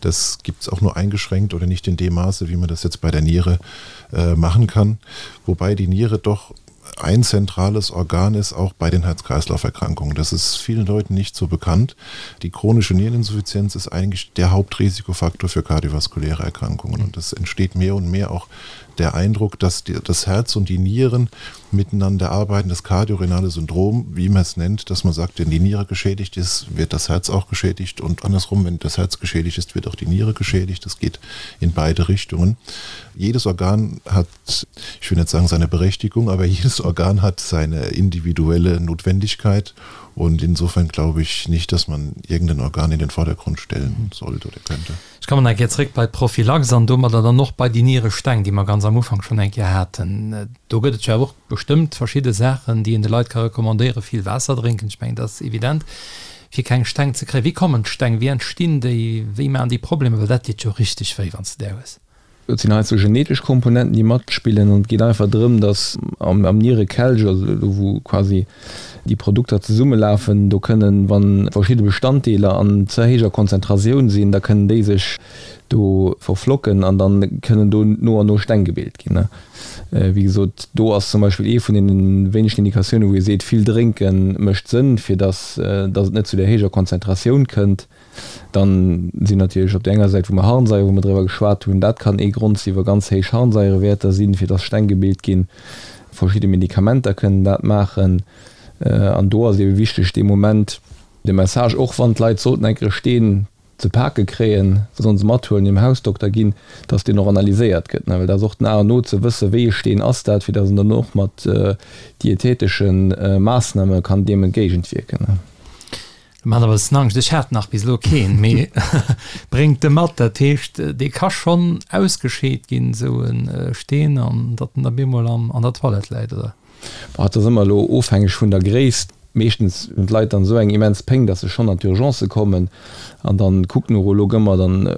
Das gibt es auch nur eingeschränkt oder nicht in dem Maße, wie man das jetzt bei der Niere äh, machen kann. Wobei die Niere doch ein zentrales Organ ist auch bei den Herz-Kreislauf-Erkrankungen. Das ist vielen Leuten nicht so bekannt. Die chronische Niereninsuffizienz ist eigentlich der Hauptrisikofaktor für kardiovaskuläre Erkrankungen. Und es entsteht mehr und mehr auch der Eindruck, dass die, das Herz und die Nieren miteinander arbeiten, das kardiorenale Syndrom, wie man es nennt, dass man sagt, wenn die Niere geschädigt ist, wird das Herz auch geschädigt und andersrum, wenn das Herz geschädigt ist, wird auch die Niere geschädigt. Das geht in beide Richtungen. Jedes Organ hat, ich will nicht sagen seine Berechtigung, aber jedes Organ. Organ hat seine individuelle Notwendigkeit und insofern glaube ich nicht, dass man irgendein Organ in den Vordergrund stellen sollte oder könnte. Ech kommen eng Kéier zréck bei d'Prophylax an domadder dann och bei déi Nieresteng, déi mer ganz am Ufank schonn eng Kéier haten. Do gëtt et jo awer och bestëmmt verschidde Saachen, déi een de Leit ka recommandéieren. Vill Waasser drénken, ech mengen, dat ass evident, fir keng Steng ze kréien. Wéi kommen d'Steng, wéi entstinn déi, wéi maachen déi Problemer? Well dat deet jo richteg wéi, wann s de där hues. Et sinn heiansdo genetesch Komponenten, déi matspillen an et geet einfach drëm, datt am Nierekelch, also do wou quasi déi Produkter zesummelafen, do kënnen, wa verschidde Bestanddeeler an ze héijer Konzentratioun sinn, da kënnen déi sech do verflocken an da kënnen do no an no Steng gebilt ginn. Wéi gesot, do ass zum Beispill ee vun deene wéinegen Indikatiounen, wou ee seet, vill drénke mécht Sënn, fir datt et net zu där héijer Konzentratioun kënnt. Dann sinn natierlech op där enger Säit, wou mer Harnsaier, wou mer driwwer geschwat hunn, dat kann ee Grond sinn, wa ganz héich Harnsaierewäerter sinn, fir dass Steng gebilt ginn. Verschidde Medikamenter kënnen dat maachen. An do ass et ebe wichteg, dee Moment de Message, och wann d'Leit sollten eng Kéier e Steen ze pake kréien, se sollen se mathuelen, hirem Hausdokter ginn, dass deen och analyséiert gëtt. Well dat ass och den A an O, ze wëssen, wéi e Steen ass dat, fir dass een dann och mat dietetesche Maassname kann deem entgéigentwierken. Mat e bëssen Angscht, ech hat nach bis elo keen, mee bréngt e mat. Dat heescht, dee ka schonn ausgescheet ginn, esou e Steen, an datt en da bemol an der Toilette läit, oder? Bon, et ass ëmmer elo ofhängeg vun der Gréisst. Meeschtens hunn d'Leit dann esou eng immens Péng, datt se schonn an d'Urgence kommen. An dann kuckt den Urolog ëmmer, dann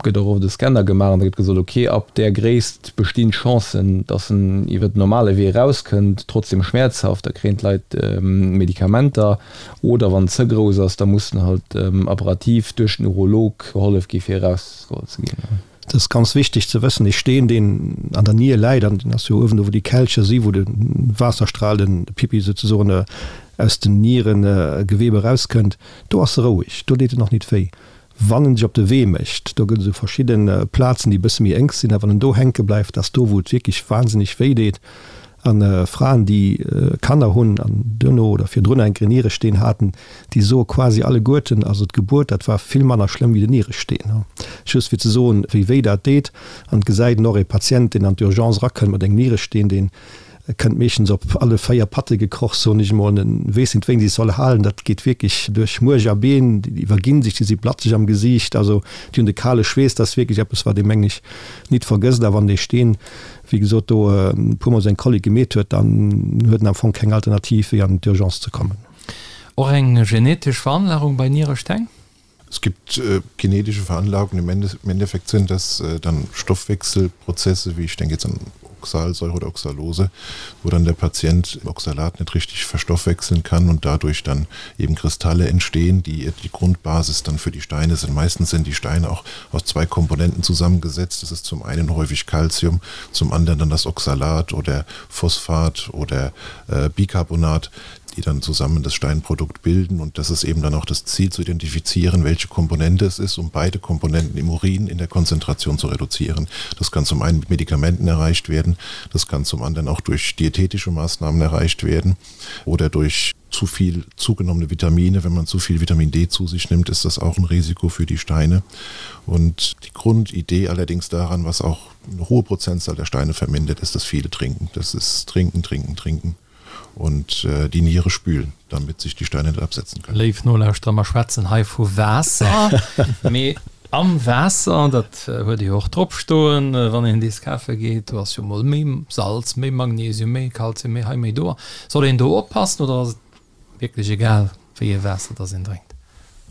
gëtt och oft e Scanner gemaach an da gëtt gesot, ok, ab där Gréisst bestinn d'Chancen, datt en iwwer den normale Wee erauskënnt, trotzdem schmäerzhaft. Da kréien d'Leit Medikamenter. Oder wann en ze grouss ass, da muss en halt apparativ duerch den Urolog gehollef gi fir erausgeholl ze ginn. Et ass ganz wichteg ze wëssen, dee Steen deen an der Nier läit, an deen ass jo uewen do wou déi Kelcher si wou de Waasserstral, den Pipi souzesoen, aus den Nierengewebe erauskënnt, do ass e roueg, do deet en och nit wéi. Wann en sech op de Wee mécht, do gëtt et esou verschidde Plazen, déi e bësse méi enk sinn, a wann en do hänke bleift, ass do, wou et wierklech wahnsinneg wéi deet. A Fraen, déi Kanner hunn an duerno oder virdrun enk en Nieresteen haten, déi soe quasi alleguerten, also d'Gebuert, dat war vill manner schlëmm wéi den Nieresteen. Just fir ze soen, wéi wéi dat deet. An et gesäit een och, e Patient, deen an d'Urgence erakënnt mat engem Nieresteen, deen Kënnt meeschtens op alle 4 Patte gekroch, soen ech emol. En weess net, wéi en sech soll halen. Dat geet wierklech duerch Muerch a Been. Déi iwwerginn sech, déi si blatzeg am Gesiicht, also déi hunn de kale Schweess. Dat ass wierklech eppes, wat ee, mengen ech, nit vergësst. A wann dee Steen, wéi gesot, do e puermol seng Kollik gemeet huet, dann huet en am Fong keng Alternativ, wéi an d'Urgence ze kommen. Och eng genetesch Veranlagung bei Nieresteng? Es gibt äh, genetische Veranlagungen. Im, Ende, Im Endeffekt sind das äh, dann Stoffwechselprozesse, wie ich denke jetzt an Oxalsäure oder Oxalose, wo dann der Patient Oxalat nicht richtig verstoffwechseln kann und dadurch dann eben Kristalle entstehen, die die Grundbasis dann für die Steine sind. Meistens sind die Steine auch aus zwei Komponenten zusammengesetzt. Das ist zum einen häufig Calcium, zum anderen dann das Oxalat oder Phosphat oder äh, Bicarbonat die dann zusammen das Steinprodukt bilden und das ist eben dann auch das Ziel zu identifizieren, welche Komponente es ist, um beide Komponenten im Urin in der Konzentration zu reduzieren. Das kann zum einen mit Medikamenten erreicht werden, das kann zum anderen auch durch diätetische Maßnahmen erreicht werden oder durch zu viel zugenommene Vitamine. Wenn man zu viel Vitamin D zu sich nimmt, ist das auch ein Risiko für die Steine. Und die Grundidee allerdings daran, was auch eine hohe Prozentzahl der Steine vermindert, ist das viele Trinken. Das ist Trinken, Trinken, Trinken und äh, die Niere spülen, damit sich die Steine nicht absetzen können. Léif Nolauschterer, mer schwätzen hei vu Waasser, mee am Waasser, dat huet ee jo och drop stoen, wann een dees kafe geet, do ass jo mol méi Salz, méi Magnesium, méi Kalzium, méi hei, méi do. Soll een do oppassen oder ass et Wierklech egal wéi ee Waasser dass een drénkt.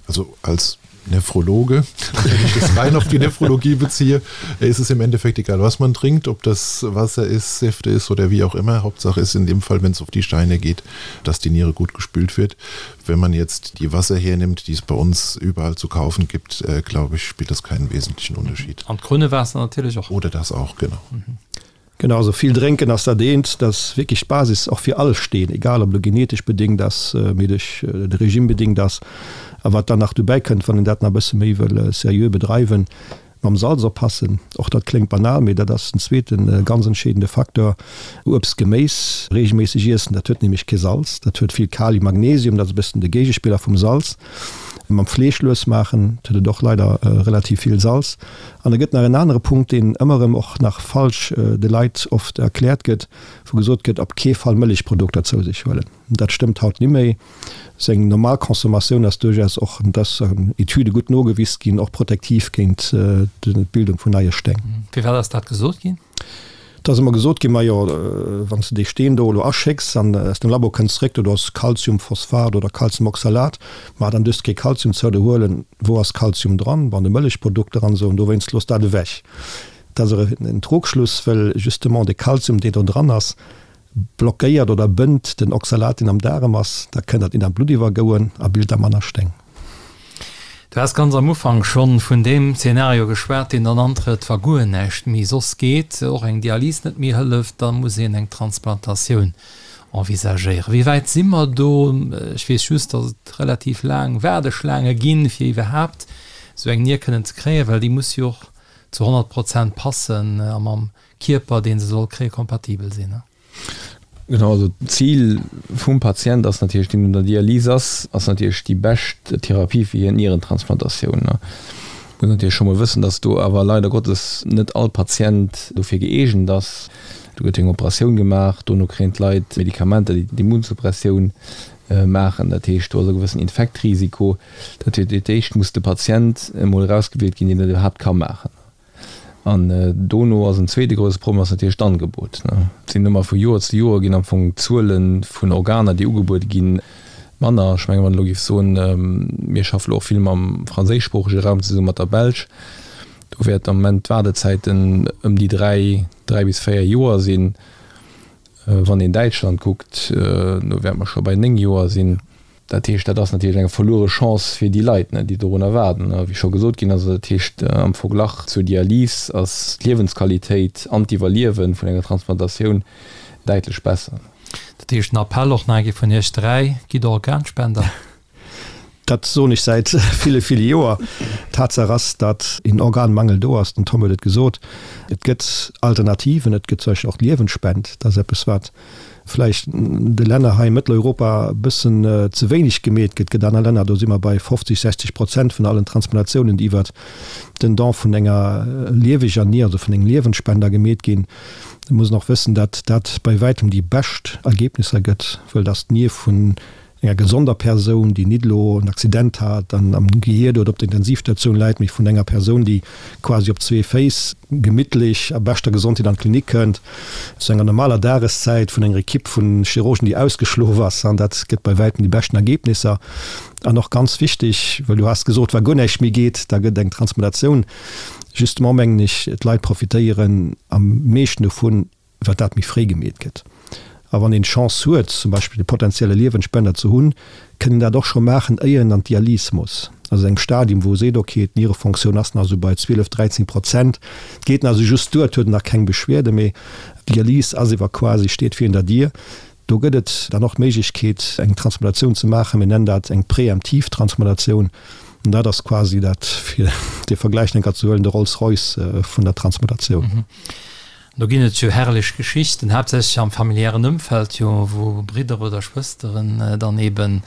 Also als Nephrologe, wenn ich das rein auf die Nephrologie beziehe, ist es im Endeffekt egal, was man trinkt, ob das Wasser ist, Säfte ist oder wie auch immer. Hauptsache ist in dem Fall, wenn es auf die Steine geht, dass die Niere gut gespült wird. Wenn man jetzt die Wasser hernimmt, die es bei uns überall zu kaufen gibt, äh, glaube ich, spielt das keinen wesentlichen Unterschied. An d'Krunnewaasser natierlech och. Oder das auch, genau. Mhm. Genau, also vill drénken ass dat eent, dat ass wierklech d'Basis och fir all Steen, egal ob elo genetesch bedéngt ass, mee duerch de Regime bedéngt ass. A wat dann nach dobäi kënnt, wann een dat nach e bësse méi wëll seriö bedreiwen, mam Salz oppassen. Och dat kléngt banal, mee dat ass en zweete ganz entscheedende Facteur. Uebst, Geméis reegelméisseg iessen, dat huet nämlech kee Salz, dat huet vill Kalium, Magnesium, dat ass e bëssen de Géigespiller vum Salz. Mam Fleesch lues maachen, et huet et och leider relativ vill Salz. An da gëtt nach en anere Punkt, deen ëmmer erëm och nach falsch de Leit oft erkläert gëtt, wou gesot gëtt, op kee Fall Mëllechprodukter zou sech huelen. Dat stëmmt haut nimméi. Seng normal Consommatioun ass duerchaus och, an dat ass an Etüde gutt nogewis ginn, och protektiv géint d'Bildung vun neie Steng. Firwat ass dat gesot ginn? Et ass ëmmer gesot ginn, majo, wann s de dee Steen do elo aschécks an aus dem Labo kënnt zeréck, do ass Calciumphosphat oder Calciumoxalat, ma dann duerfs de kee Calcium zou der huelen. Wou ass Calcium dran? An de Mëllechprodukter an esou, an dowéinst looss dat ewech. Dat ass awer en Trugschluss, well justement de Calcium, dee do dran ass, blockéiert oder bënnt den Oxalat, deen am Daarem ass, da kënnt dat nit an d'Blutt iwwergouen a bilt da manner Steng. Du has ganz am Ufank schonn vun deem Zeenario geschwat, deen dann antrëtt, wa guer näischt méi soss geet, och eng Dialys net méi hëlleft, da muss een eng Transplantatioun envisagéieren. Wéi wäit si mer do? Ech weess just, datt et relativ laang Waardeschlaange ginn, fir iwwerhaapt esou eng Nier kënnen ze kréien, well déi muss jo och zu 100 Prozent passen a mam Kierper, dee se soll kréien, kompatibel sinn. Genau, also d'Zil vum Patient ass natierlech, deen un der Dialys ass, ass natierlech déi bescht Therapie fir hien d'Nierentransplantatioun. Muss natierlech scho mol wëssen, datt do awer leider Gottes net all Patient dofir gëeegent ass. Do gëtt eng Operatioun gemaach, dono kréien d'Leit Medikamenter, déi d'Immunsuppressioun maachen. Dat heescht, do ass e gewëssen Infektrisiko. Dat heescht, fir d'éischt muss de Patient emol erausgewielt ginn, deen dat iwwerhaapt ka maachen. An dono ass en zweete grousse Problem ass natierlech d'Angebot. Et sinn ëmmer vu Joer zu Joer ginn am Fong d'Zuele vun Organer, déi ugebuede ginn, manner. Ech mengen, wann ech elo géif soen, mir schaffe elo och vill mam franséischsproochege Raum zesummen, mat der Belsch, do wäert am Moment d'Waardezäiten ëm déi dräi, dräi bis véier Joer sinn. Wann een Däitschland kuckt, do wäerte mer scho bei néng Joer sinn. Dat heescht, dat ass natierlech eng verluere Chance fir déi Leit, déi dorunner waarden. A wéi scho gesot ginn ass, dat heescht am Verglach zur Dialys ass d'Liewensqualitéit an d'Iwwerliewe vun enger Transplantatioun däitlech besser. Dat heescht, en Appell och nach eng Kéier vun Iech 3, Gitt Organspender! Dat soen ech säit ville, ville Joer. Tatsaach ass, datt een Organmangel do ass, den Tom huet et gesot. Et gëtt Alternativen, et gëtt zum Beispill och d'Liewensspend. Dat ass eppes, wat vläicht de Länner hei a Mëtteleuropa e bëssen ze wéineg gemeet gëtt. Et gëtt aner Länner, do si mer bei 50, 60 Prozent vun allen Transplantatiounen, déi iwwert den Don vun enger lieweger Nier, also vun engem Liewensspender gemeet ginn. Et muss een och wëssen, datt dat bei wäitem déi bescht Ergebnisser gëtt, wëll datt d'Nier vun enger gesonder Persoun, déi nit elo en Accident hat an am Gehier oder op der Intensivstatioun läit, mee vun enger Persoun, déi quasi op zwee Féiss gemittlech a beschter Gesondheet an d'Klinik kënnt, zu enger normaler Dageszäit, vun enger Ekipp vu Chirurgen, déi ausgeschlof ass. An dat gëtt bei wäitem déi beschten Ergebnisser. An och ganz wichteg, well du has gesot, wa guer näischt méi geet, da gëtt eng Transplantatioun. Justement mengen ech, d'Leit profitéieren am meeschten dovun, wat dat méi fréi gemeet gëtt. A wann een d'Chance huet, zum Beispill e potenzielle Liewensspender ze hunn, kënn een dat och scho maachen, éier een an d'Dialys muss. Also engem Stadium, wou e seet, okay, d'Nierefonctioun ass nach esou bei 12, 13 Prozent, et geet nach esou just duer, et huet en nach keng Beschwerde, mee d'Dialys ass ewer quasi, steet virun der Dier. Do gëtt et dann och d'Méiglechkeet, eng Transplantatioun ze maachen. Mir nennen dat eng preemptiv Transplantatioun. An dat ass quasi dat, fir dee Vergläich nach eng Kéier ze huelen, de Rolls-Royce vun der Transplantatioun. Do ginn et jo herrlech Geschichten, haaptsächlech am familiären Ëmfeld jo, wou Bridder oder Schwësteren dann eben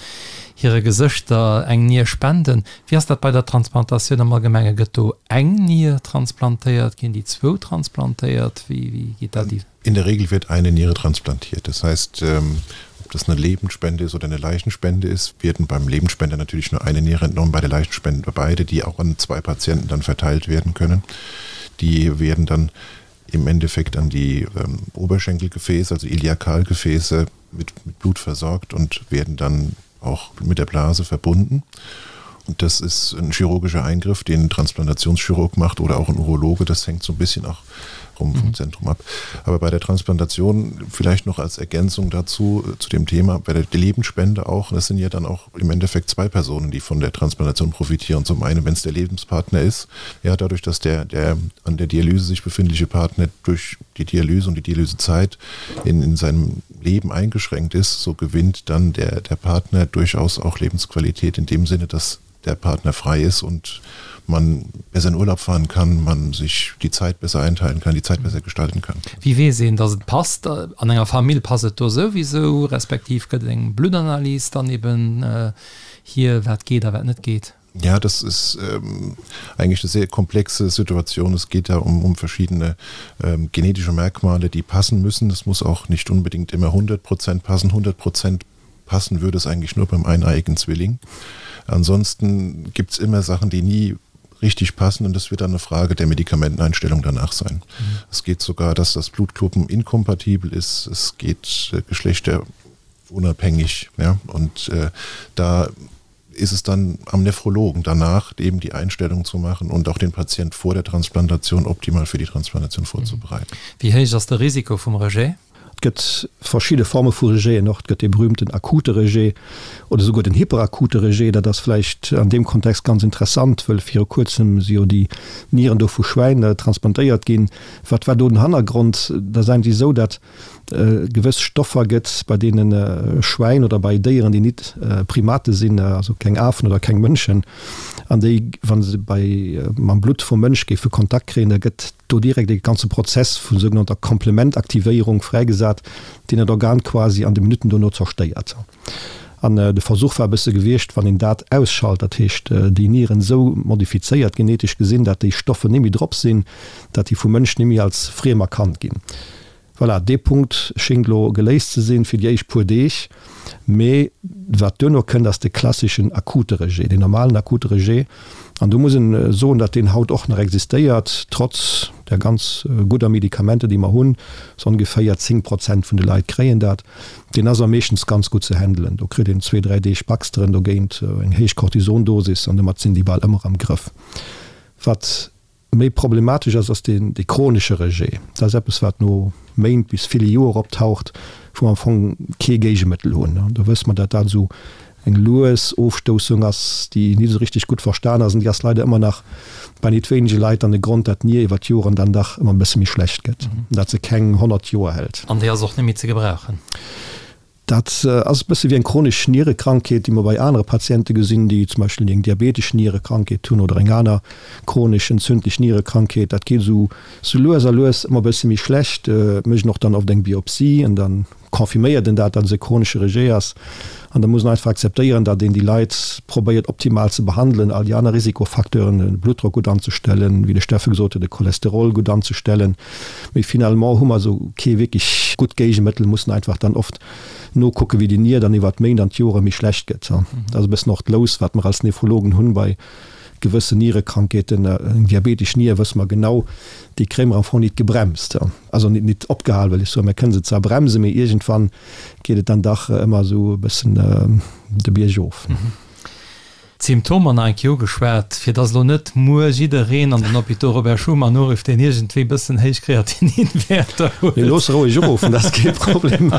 hire Gesëschter eng Nier spenden. Wéi ass dat bei der Transplantatioun am Allgemenge? Gëtt do eng Nier transplantéiert? Ginn déi zwou transplantéiert? Wéi geet dat? In der Regel wird eine Niere transplantiert. Das heißt, ob das eine Lebendspende ist oder eine Leichenspende ist, werden beim Lebendspender natürlich nur eine Niere entnommen, bei der Leichenspende beide, die auch an zwei Patienten dann verteilt werden können. Die werden dann im Endeffekt an die ähm, Oberschenkelgefäße, also Iliakalgefäße mit, mit Blut versorgt und werden dann auch mit der Blase verbunden. Und das ist ein chirurgischer Eingriff, den ein Transplantationschirurg macht oder auch ein Urologe. Das hängt so ein bisschen auch rum vom mhm. Zentrum ab. Aber bei der Transplantation vielleicht noch als Ergänzung dazu äh, zu dem Thema bei der Lebensspende auch, das sind ja dann auch im Endeffekt zwei Personen, die von der Transplantation profitieren. Zum einen, wenn es der Lebenspartner ist, ja dadurch, dass der, der an der Dialyse sich befindliche Partner durch die Dialyse und die Dialysezeit in, in seinem Leben eingeschränkt ist, so gewinnt dann der, der Partner durchaus auch Lebensqualität in dem Sinne, dass der. der Partner frei ist und man besser in Urlaub fahren kann, man sich die Zeit besser einteilen kann, die Zeit besser gestalten kann. Wéi weess een, dass et passt? An enger Famill passt et do souwisou, respektiv gëtt et eng Bluttanalys dann eben hier, wat geet a wat net geet? Ja, das ist ähm, eigentlich eine sehr komplexe Situation. Es geht da um, um verschiedene ähm, genetische Merkmale, die passen müssen. Das muss auch nicht unbedingt immer 100 Prozent passen. 100 Prozent passen würde es eigentlich nur beim eineiigen Zwilling. Ansonsten gibt es immer Sachen, die nie richtig passen und das wird dann eine Frage der Medikamenteneinstellung danach sein. Mhm. Es geht sogar, dass das Blutgruppen inkompatibel ist. Es geht äh, geschlechterunabhängig ja? und äh, da ist es dann am Nephrologen danach eben die Einstellung zu machen und auch den Patient vor der Transplantation optimal für die Transplantation vorzubereiten. Wéi héich ass de Risiko vum Rejet? Et gëtt verschidde Forme vu Rejeten och. Et gëtt dee berühmten akute Rejet oder souguer den hyperakute Rejet. Dat ass vläicht an deem Kontext ganz interessant, wëll viru kuerzem si jo déi Nieren do vu Schwäin transplantéiert ginn. Wat war do den Hannergrond? Dat ass eigentlech esou, dat gewëss Stoffer gëtt, bei deene Schwäin oder bei Déieren, déi nit Primate sinn, also keng Afen oder keng Mënschen, an déi, wa se bei mam Blutt vum Mënsch géife Kontakt kréien, da gëtt do direkt e ganze Prozess vu sougenannter Komplementaktivéierung fräigesat, deen dat Organ quasi an de Minutten dono zerstéiert. An de Versuch war e bësse gewiescht, wann een dat ausschalt, dat heescht déi Nieren esou modifizéiert, genetesch gesinn, dat déi Stoffe net méi drop sinn, dat déi vum Mënsch net méi als friem erkannt ginn. Voilà, dee Punkt schéngt elo geléist ze sinn fir déi éischt puer Deeg. Mee wat duerno kënnt, ass de klasseschen akute Rejet, deen normalen akute Rejet. An do muss een soen, datt deen haut och nach existéiert, trotz der ganz gudder Medikamenter, déi mer hunn. Sou ongeféier 10 Prozent vun de Leit kréien dat. Deen ass awer meeschtens ganz gutt ze handelen. Do kritt een zwee, dräi Deeg Baxteren dogéint, eng héich Cortisondosis, an domat sinn déi bal ëmmer am Grëff. Wat Méi problematesch ass, ass deen dee chronesche Rejet. Dat ass eppes, wat no Méint bis ville Joer optaucht, wou mer am Fong kee Géigemëttel hunn. An do wësse mer, dat dat esou eng lues Ofstoussung ass, déi nit esou richteg gutt verstan ass. An déi ass leider ëmmer nach bei nit wéinege Leit dann de Grond, dat d'Nier iwwer d'Joren dann dach ëmmer e bësse méi schlecht gëtt, an dat se keng 100 Joer hält. An déi ass och net méi ze gebrauchen. Dat ass e bësse wéi eng chronesch Nierekrankheet, déi mer bei anere Patiente gesinn, déi zum Beispill eng diabetesch Nierekrankheet hunn oder eng aner chronesch entzündlech Nierekrankheet. Dat geet esou sou lues a lues ëmmer e bësse méi schlecht, mécht een och dann oft eng Biopsie an da confirméiert een dat, datt et e chronesche Rejet ass. An da muss een einfach akzeptéieren, datt een déi Leit probéiert optimal ze behandelen, all déi aner Risikofacteuren, de Bluttdrock gutt anzestellen, wéi de Steffe gesot huet, de Cholesterol gutt anzestellen. Mee finalement hu mer esou kee wierklech gutt Géigemëttel, mussen einfach dann oft nokucken, wéi déi Nier dann iwwert d'Méint an d'Jore méi schlecht gëtt. Dat ass e bëssen och d'Lous, wat mer als Nephrologen hunn bei gewëssen Nierekrankheeten. Eng diabetesch Nier, wësse mer genau, déi kréie mer am Fong nit gebremst, also nit nit opgehal, wëll ech soen. Mer kënne se zwar bremsen, mee iergendwann geet et dann dach ëmmer esou e bëssen de Bierg of. D'Symptomer nach eng Kéier ugeschwat, fir dass elo net muer jiddereen an den Hôpitaux Robert Schuman urifft, deen iergendwéi bëssen héich Kreatininwäerter huet. Mee looss roueg uruffen, dat ass kee Problem.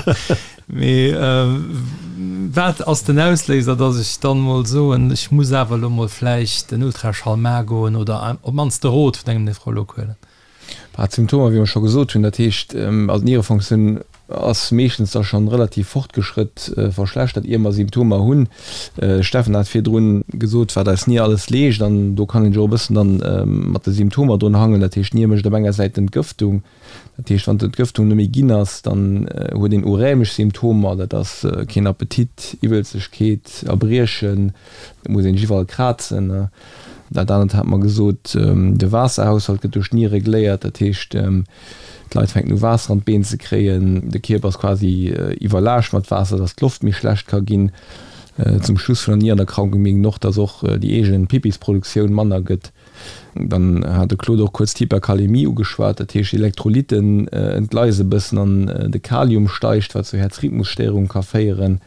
Mee wat ass den Ausléiser, dass ech dann mol soen, ech muss awer elo mol vläicht en Ultraschall maache goen oder op d'mannst de Rot vun engem Nephrolog huelen? Bah, d'Symptomer, wéi mer scho gesot hunn, dat heescht, also d'Nierefonctioun ass meeschtens da schonn relativ fortgeschrëtt verschlechtert, ier mer Symptomer hunn. De Steffen hat virdrun gesot, wat eis Nier alles leescht, an do kann een sech och e bëssen dann mat de Symptomer drun hangelen. Dat heescht, d'Nier mécht op enger Säit d'Entgëftung, dat heescht, wann d'Entgëftung net méi ginn ass, dann huet een urämesch Symptomer, dat ass keen Appetit, Iwwelzegkeet, Erbriechen, et muss een sech iwwerall krazen. Dat anert hat mer gesot, de Waasserhaushalt gëtt duerch d'Nier regléiert, dat heescht, d'Leit fänken u Waasser an d'Been ze kréien, de Kierper ass quasi iwwerlaascht mat Waasser, datt d'Loft méi schlecht ka ginn. Zum Schluss vun der Nierenerkrankung mierkt een och, datt och déi eegen Pippisproduktioun manner gëtt. Dann hat de Claude och kuerz d'Hyperkalämie ugeschwat, dat heescht d'Elektrolytten entgleise e bëssen an de Kalium steigt, wat zu Häerzrhythmusstéierung ka féieren.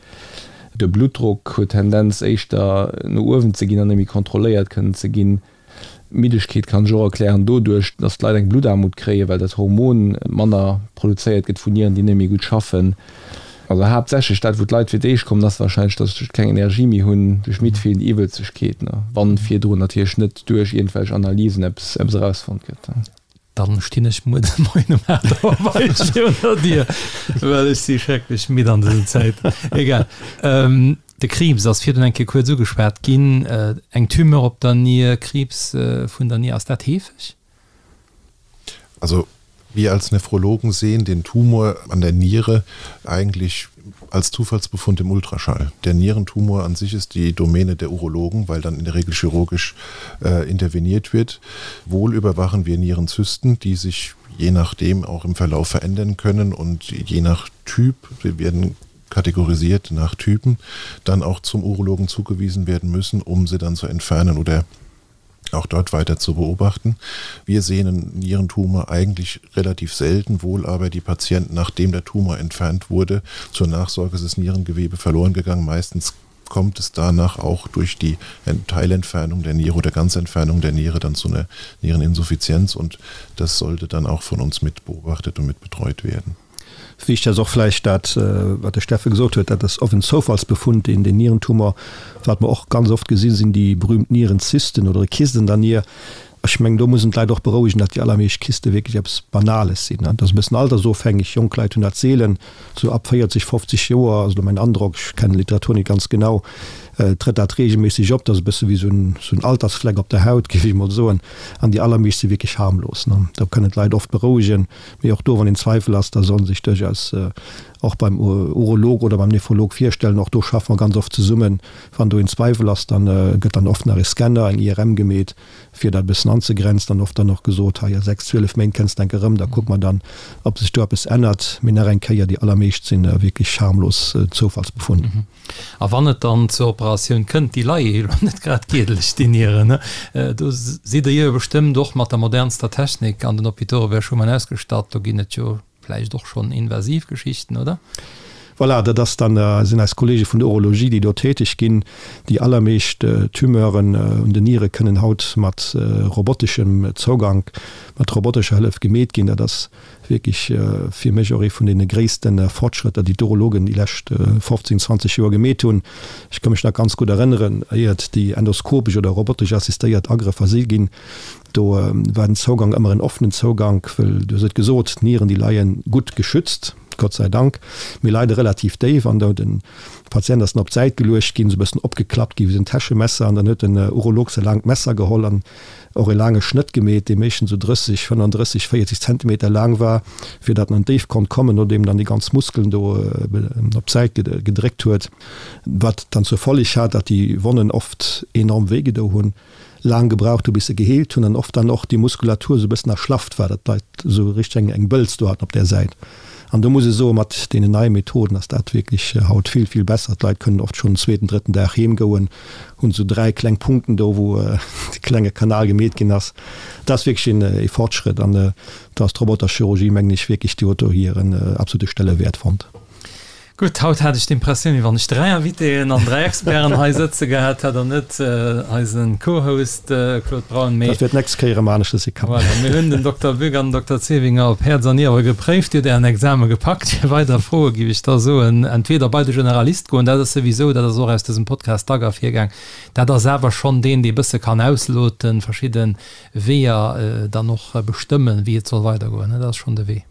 De Bluttdrock huet Tendenz éischter no uewen ze ginn an net méi kontrolléiert kënnen ze ginn. D'Middegkeet kann sech och erklären doduerch, dass d'Leit eng Bluttaarmut kréien, well dat Hormon manner produzéiert gëtt vun Nieren, déi net méi gutt schaffen. Also haaptsächlech dat, wou d'Leit fir d'éischt kommen, ass warscheinlech, dass se keng Energie méi hunn, duerch midd fillen, déi Iwwelzegkeet, wann virdrun natierlech net duerch iergendwelch Analysen eppes erausfonnt gëtt. Dann stinn ech muer de Moien um 8 Auer bei iech virun der Dier, well ech si schrecklech midd an dësen Zäiten. Egal. De Kriibs ass virdrun eng Kéier kuerz ugeschwat ginn. Eng Tumeur op der Nier, Kriibs vun der Nier, ass dat heefeg? Also wir als Nephrologen sehen den Tumor an der Niere eigentlich als Zufallsbefund im Ultraschall. Der Nierentumor an sich ist die Domäne der Urologen, weil dann in der Regel chirurgisch äh, interveniert wird. Wohl überwachen wir Nierenzysten, die sich je nachdem auch im Verlauf verändern können und je nach Typ, wir werden kategorisiert nach Typen, dann auch zum Urologen zugewiesen werden müssen, um sie dann zu entfernen oder auch dort weiter zu beobachten. Wir sehen Nierentumor eigentlich relativ selten, wohl aber die Patienten, nachdem der Tumor entfernt wurde, zur Nachsorge ist das Nierengewebe verloren gegangen. Meistens kommt es danach auch durch die Teilentfernung der Niere oder Ganzentfernung der Niere dann zu einer Niereninsuffizienz und das sollte dann auch von uns mit beobachtet und mit betreut werden. Wichtig ass och vläicht dat, wat de Steffe gesot huet, dat ass oft en Zoufallsbefund, deen den Nierentumor, wat mer och ganz oft gesinn, sinn déi berühmt Nierenzysten oder Kysten an der Nier. Ech mengen, do muss een d'Leit och berouegen, datt déi allermeescht Kyste wierklech eppes Banales sinn. Dat ass e bëssen altersofhängeg, jonk Leit hunn dat seelen, sou ab 40, 50 Joer ass elo mäin Androck, ech kennen d'Literatur net ganz genau, trëtt dat reegelméisseg op. Dat ass e bësse wéi sou en Altersfleck op der Haut, géif ech emol soen. An déi allermeescht si wierklech harmlos. Do kënnen d'Leit oft berouegen. Mee och do, wann een Zweifel ass, da soll en sech duerchaus och beim Urolog oder beim Nephrolog virstellen. Och do schaffe mer ganz oft zesummen. Wann do een Zweiwel ass, da gëtt dann oft nach e Scanner, eng IRM gemeet, fir dat e bëssen anzegrenzen. An oft dann och gesot, hei a 6, 12 Méint kënnst de enke erëm, da kucke mer dann, ob sech do eppes ännert. Mee nach eng Kéier, déi allermeescht si wierklech harmlos Zoufallsbefunn. A wann et dann zur Operatioun kënnt, déi leie jo elo net grad giedeleg, déi Nieren, ne? Do sidd Der jo bestëmmt och mat der modernster Technik an den Hôpitaux Robert Schuman ausgestatt. Do ginn et jo vläicht och schonn invasiv Geschichten, oder? Voilà, dat ass dann, sinn eis Kollege vun der Urologie, déi do täteg ginn. Déi allermeescht Tumeuren un den Niere kënnen haut mat roboteschem Zougank, mat robotescher Hëllef gemeet ginn. Dat ass Wierklech fir mech och ee vun deene gréisste Fortschrëtter, déi d'Urologen déi lescht 15, 20 Joer gemeet hunn. Ech ka mech nach ganz gutt erënneren, éiert déi endoskopesch oder robotesch assistéiert Agrëffer si ginn, do war den Zougang ëmmer en offenen Zougank, wëll, du hues et gesot, d'Nieren, déi leie gutt geschützt, Gott sei Dank, mee leide relativ déif an do de Patient ass dann op d'Säit geluecht ginn, esou e bëssen opgeklappt gi wéi esou en Täschemesser an dann huet den Urolog säi laangt Messer geholl an och e laange Schnëtt gemeet, dee meeschtens esou 30, 35, 40 Zentimeter laang war, fir datt en an d'Déift konnt kommen, nodeem dann déi ganz Muskeln do op d'Säit gedréckt huet, wat dann zur Folleg hat, datt déi Wonnen oft enorm wéi gedo hunn, laang gebraucht hu bis se geheelt hunn an oft dann och déi Muskulatur esou e bëssen erschlafft war, datt d'Leit esou richteg eng Bëlz do haten op där Säit. An do muss ech soen, mat deenen neie Methoden ass dat wierklech haut vill, vill besser. D'Leit kënnen oft schonn den zweeten, drëtten Dag heem goen, hunn esou 3 kleng Punkten do, wou de klenge Kanal gemeet ginn ass. Dat ass wierklech een Fortschrëtt an do ass d'Roboterchirurgie, mengen ech, wierklech, déi huet do hiren absolute Stellewäert fonnt. Gutt, haut hat ech d'Impressioun, wéi wann ech 3 Invitéen an 3 Experten hei sëtze gehat hätt an net eise Co-Host Claude Braun. Mee Dat wäert d'nächst Kéier erëm aneschters si. Voilà, mir hunn den Dokter Bück an den Dokter Zevinger op Häerz an Niere gepréift. Dir hutt Ären Exame gepackt. Fir weider Froe géif ech da soen, entweder bei de Generalist goen, dat ass souwisou, dat ass och aus dësem Podcast dack ervirgaang, dat ass awer schonn deen, dee bësse kann ausloten, verschidde Weeër dann och bestëmmen, wéi et soll weidergoen. Dat ass schonn de Wee.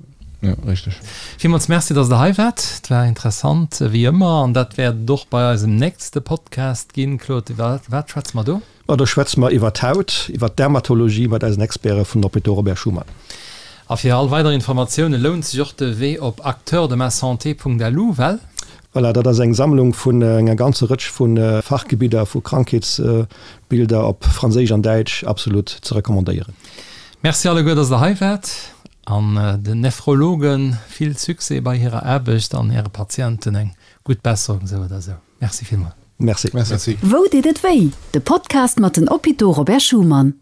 Ja, richteg. Villmools Merci, dass Der hei waart. Et war interessant, wéi ëmmer. An dat wäert et och bei eisem nächste Podcast ginn. Claude, iwwer wat schwätze mer do? Ma do schwätze mer iwwer d'Haut, iwwer d'Dermatologie mat eisen Experte vun Hôpitaux Robert Schuman. A fir all weider Informatioune lount sech och de Wee op acteursdemasanté.lu, well? Voilà, dat ass eng Sammlung vun enger ganzer Rëtsch vu Fachgebidder, vu Krankheetsbilder op Franséisch an Däitsch, absolut ze recommandéieren. Merci alleguer, dass Der hei waart. An den Nephrologen vill Succès bei hirer Aarbecht an hire Patienten eng gutt Besserung sou oder sou. Merci villmol. Merci. Merci. Wou deet et wéi? De Podcast mat den Hôpitaux Robert Schuman.